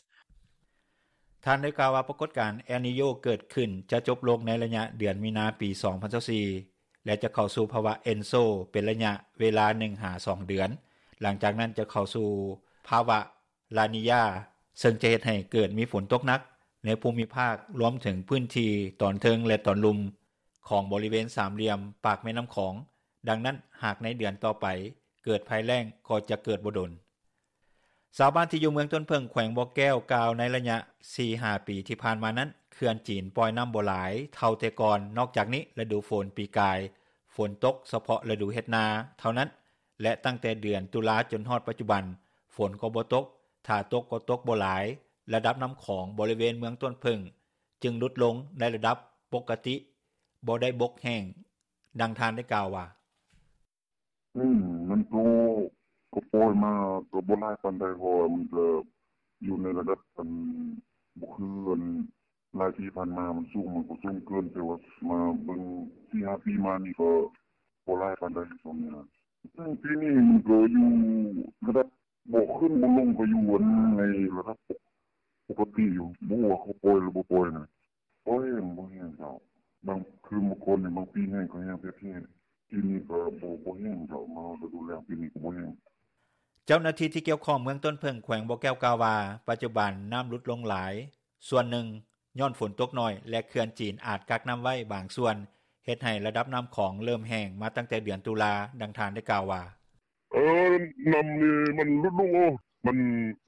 ທ່ານໄດ້ກ່າວວ່າ ປາກົດການ El Niño ເກີດຂຶ້ນຈະຈົບລົງໃນໄລຍະເດືອນມີນາປີສອງພັນຊາວສີ່ ແລະ ຈະເຂົ້າສູ່ພາວະ El Niño ເປັນໄລຍະເວລາໜຶ່ງຫາສອງເດືອນ. ຫຼັງຈາກນັ້ນຈະເຂົ້າສູ່ພາວະ La Niña ເຊິ່ງຈະເຮັດໃຫ້ເກີດມີຝົນຕົກໜັກໃນພູມິພາກ ລວມເຖິງພື້ນທີ່ຕອນເທິງ ແລະ ຕອນລຸ່ມຂອງບໍລິເວນສາມຫຼ່ຽມປາກແມ່ນ້ຳຂອງ. ດັ່ງນັ້ນ ຫາກໃນເດືອນຕໍ່ໄປເກີດໄພແລ້ງກໍຈະເກີດບໍ່ດົນ. ຊາວບ້ານທີ່ຢູ່ເມືອງຕົ້ນເຜິ້ງ ແຂວງບໍ່ແກ້ວ ກ່າວໃນໄລຍະ ສີ່ຫາປີທີ່ຜ່ານມານັ້ນ ເຂື່ອນຈີນປ່ອຍນໍ້າບໍ່ຫຼາຍເທົ່າແຕ່ກ່ອນ. ນອກຈາກນີ້ ລະດູຝົນປີກາຍ ຝົນຕົກສະເພາະລະດູເຮັດນາເທົ່ານັ້ນ ແລະ ຕັ້ງແຕ່ເດືອນຕຸລາຈົນຮອດປັດຈຸບັນ ຝົນກໍບໍ່ຕົກ, ຖ້າຕົກກໍຕົກບໍ່ຫຼາຍ. ລະດັບນໍ້າຂອງບໍລິເວນເມືອງຕົ້ນເຜິ້ງ ຈຶ່ງຫຼຸດລົງໃນລະດັບປົກກະຕິ, ບໍ່ໄດ້ບົກແຫ້ງ. ດັ່ງທ່ານໄດ້ກ່າວວ່າ: ອືມ ມັນກໍ ກໍປ່ອຍມາກໍບໍ່ຫຼາຍປານໃດ ເພາະວ່າມັນກໍຢູ່ໃນລະດັບ ອັນ ບໍ່ຄື ອັນ ຫຼາຍປີຜ່ານມາມັນສູງ ມັນກໍສູງເກີນ ແຕ່ວ່າມາເບິ່ງ ສີ່ຫ້າປີມານີ້ກໍບໍ່ຫຼາຍປານໃດຊ່ວງນີ້ນະ. ອືມ ປີນີ້ມັນກໍຢູ່ລະດັບ ບໍ່ຂຶ້ນບໍ່ລົງ ກໍຢູ່ ອັນ ໃນລະດັບປົກກະຕິຢູ່ ບໍ່ຮູ້ວ່າເຂົາປ່ອຍຫຼືບໍ່ປ່ອຍນະ. ບໍ່ແຫ້ງ ບໍ່ແຫ້ງເຈົ້າ. ບາງຄືເມື່ອກ່ອນນີ້ ບາງປີແຫ້ງກໍແຫ້ງແທ້ໆ ປີນີ້ກໍບໍ່ ບໍ່ແຫ້ງເຈົ້າ. ມາຮອດລະດູແລ້ງ ປີນີ້ກໍບໍ່ແຫ້ງ. ເຈົ້າໜ້າທີ່ທີ່ກ່ຽວຂ້ອງເມືອງຕົ້ນເຜິ້ງ ແຂວງບໍ່ແກ້ວ ກ່າວວ່າ ປັດຈຸບັນນໍ້າຫຼຸດລົງຫຼາຍ ສ່ວນໜຶ່ງຍ້ອນຝົນຕົກໜ້ອຍ ແລະ ເຂື່ອນຈີນອາດກັກນໍ້າໄວ້ບາງສ່ວນ ເຮັດໃຫ້ລະດັບນໍ້າຂອງເລີ່ມແຫ້ງມາຕັ້ງແຕ່ເດືອນຕຸລາ. ດັ່ງທ່ານໄດ້ກ່າວວ່າ: ເອີ ນໍ້ານີ້ມັນຫຼຸດລົງ ໂອ້ ມັນ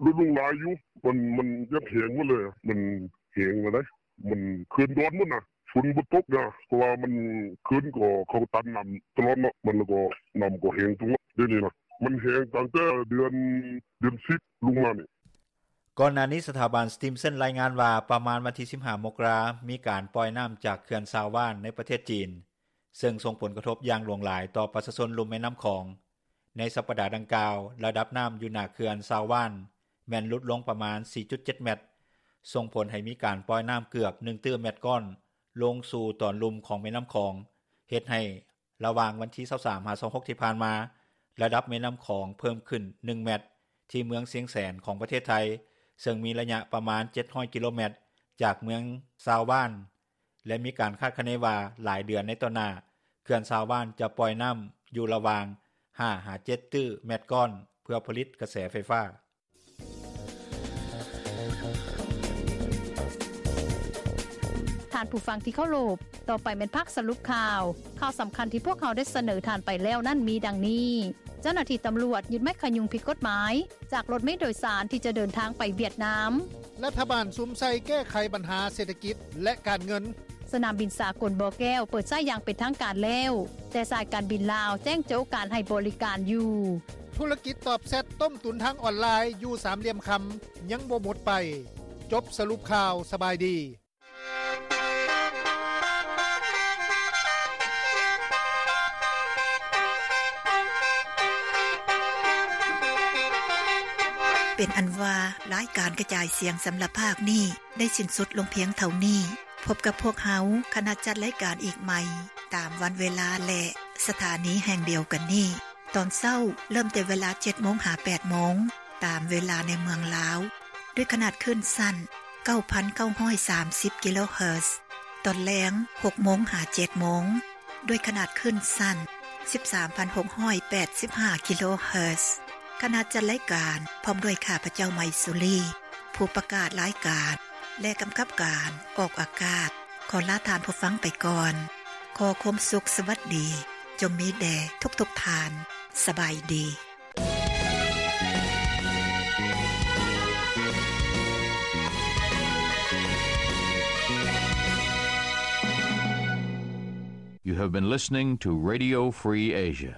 ຫຼຸດລົງຫຼາຍຢູ່ ມັນ ມັນຢາກແຫ້ງໝົດເລີຍ ມັນແຫ້ງແລ້ວໃດ໋ ມັນຂຶ້ນດອນໝົດນະ ຝົນບໍ່ຕົກນະ ເພາະວ່າມັນຂຶ້ນກໍເຂົາຕັນນໍ້າຕະຫຼອດເນາະ ມັນແລ້ວກໍ ນໍ້າກໍແຫ້ງຕົງ ດຽວນີ້ນະ ມັນແຫ້ງຕັ້ງແຕ່ເດືອນ ເດືອນສິບລົງມານີ້. ກ່ອນໜ້ານີ້ ສະຖາບັນ Stimson ລາຍງານວ່າ ປະມານວັນທີ ສິບຫ້າ ມົກກະລາ ມີການປ່ອຍນໍ້າຈາກເຂື່ອນຊາວວານໃນປະເທດຈີນ ເຊິ່ງສົ່ງຜົນກະທົບຢ່າງຫຼວງຫຼາຍຕໍ່ປະຊາຊົນລຸ່ມແມ່ນໍ້າຂອງ. ໃນສັບປະດາດັ່ງກ່າວ ລະດັບນໍ້າຢູ່ໜ້າເຂື່ອນຊາວວານ ແມ່ນຫຼຸດລົງປະມານ ສີ່ຈຸດເຈັດ ແມັດ ສົ່ງຜົນໃຫ້ມີການປ່ອຍນໍ້າເກືອບ ໜຶ່ງຕື້ແມັດກ້ອນ ລົງສູ່ຕອນລຸ່ມຂອງແມ່ນໍ້າຂອງ ເຮັດໃຫ້ລະຫວ່າງວັນທີ ຊາວສາມ ຫາ ຊາວຫົກ ທີ່ຜ່ານມາ ລະດັບແມ່ນໍ້າຂອງເພີ່ມຂຶ້ນ ໜຶ່ງ ແມັດ ທີ່ເມືອງຊຽງແສນຂອງປະເທດໄທ ເຊິ່ງມີໄລຍະປະມານ ເຈັດຮ້ອຍ ກິໂລແມັດ ຈາກເມືອງຊາວວານ ແລະ ມີການຄາດຄະເນວ່າ ຫຼາຍເດືອນໃນຕໍ່ໜ້າ ເຂື່ອນຊາວວານຈະປ່ອຍນໍ້າຢູ່ລະຫວ່າງ ຫ້າ ຫາ ເຈັດ ຕື້ແມັດກ້ອນ ເພື່ອຜະລິດກະແສໄຟຟ້າ. ທ່ານຜູ້ຟັງທີ່ເຄົາລົບ, ຕໍ່ໄປແມ່ນພາກສະຫຼຸບຂ່າວ. ຂ່າວສຳຄັນທີ່ພວກເຮົາໄດ້ສະເໜີທ່ານໄປແລ້ວນັ້ນມີດັ່ງນີ້: ເຈົ້າໜ້າທີ່ຕຳຫຼວດຍຶດໄມ້ຂະຍຸງຜິດກົດໝາຍ ຈາກລົດເມໂດຍສານທີ່ຈະເດີນທາງໄປຫວຽດນາມ. ລັດຖະບານສຸມໃສ່ແກ້ໄຂບັນຫາເສດຖະກິດ ແລະ ການເງິນ. ສະໜາມບິນສາກົນບໍ່ແກ້ວເປີດໃຊ້ຢ່າງເປັນທາງການແລ້ວ, ແຕ່ສາຍການບິນລາວແຈ້ງໂຈະການໃຫ້ບໍລິການຢູ່. ທຸລະກິດຕອບແຊັດຕົ້ມຕຸນທາງອອນລາຍຢູ່ສາມຫຼ່ຽມຄຳ ຍັງບໍ່ໝົດໄປ. ຈົບສະຫຼຸບຂ່າວ. ສະບາຍດີ. ເປັນອັນວ່າ ລາຍການກະຈາຍສຽງສຳລັບພາກນີ້ ໄດ້ສິ້ນສຸດລົງພຽງເທົ່ານີ້. ພົບກັບພວກເຮົາ ຄະນະຈັດລາຍການອີກໃໝ່ ຕາມວັນເວລາ ແລະ ສະຖານີແຫ່ງດຽວກັນນີ້ ຕອນເຊົ້າ ເລີ່ມແຕ່ເວລາ ເຈັດໂມງ ຫາ ແປດໂມງ ຕາມເວລາໃນເມືອງລາວ ດ້ວຍຂະໜາດຄື້ນສັ້ນ ເກົ້າພັນເກົ້າຮ້ອຍສາມສິບ ກິໂລເຮີດ, ຕອນແລງ ຫົກໂມງ ຫາ ເຈັດໂມງ ດ້ວຍຂະໜາດຄື້ນສັ້ນ ສິບສາມພັນຫົກຮ້ອຍແປດສິບຫ້າ ກິໂລເຮີດ. ຄະນະຈັດລາຍການ ພ້ອມດ້ວຍຂ້າພະເຈົ້າ ໄມສຸລີ ຜູ້ປະກາດລາຍການ ແລະ ກຳກັບການອອກອາກາດ ຂໍລາທ່ານຜູ້ຟັງໄປກ່ອນ. ຂໍຄວາມສຸກສະຫວັດດີ ຈົ່ງມີແດ່ທຸກໆທ່ານ. ສະບາຍດີ. You have been listening to Radio Free Asia.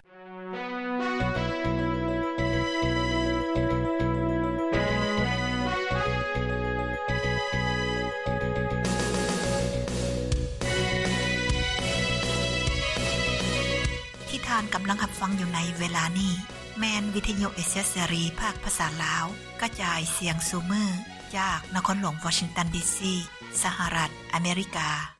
ທີ່ທ່ານກຳລັງຮັບຟັງຢູ່ໃນເວລານີ້ ແມ່ນວິທະຍຸເອເຊຍເສລີ ພາກພາສາລາວ ກະຈາຍສຽງສູ່ມື້ ຈາກນະຄອນຫຼວງວໍຊິງຕັນ ດີຊີ ສະຫະລັດອາເມລິກາ.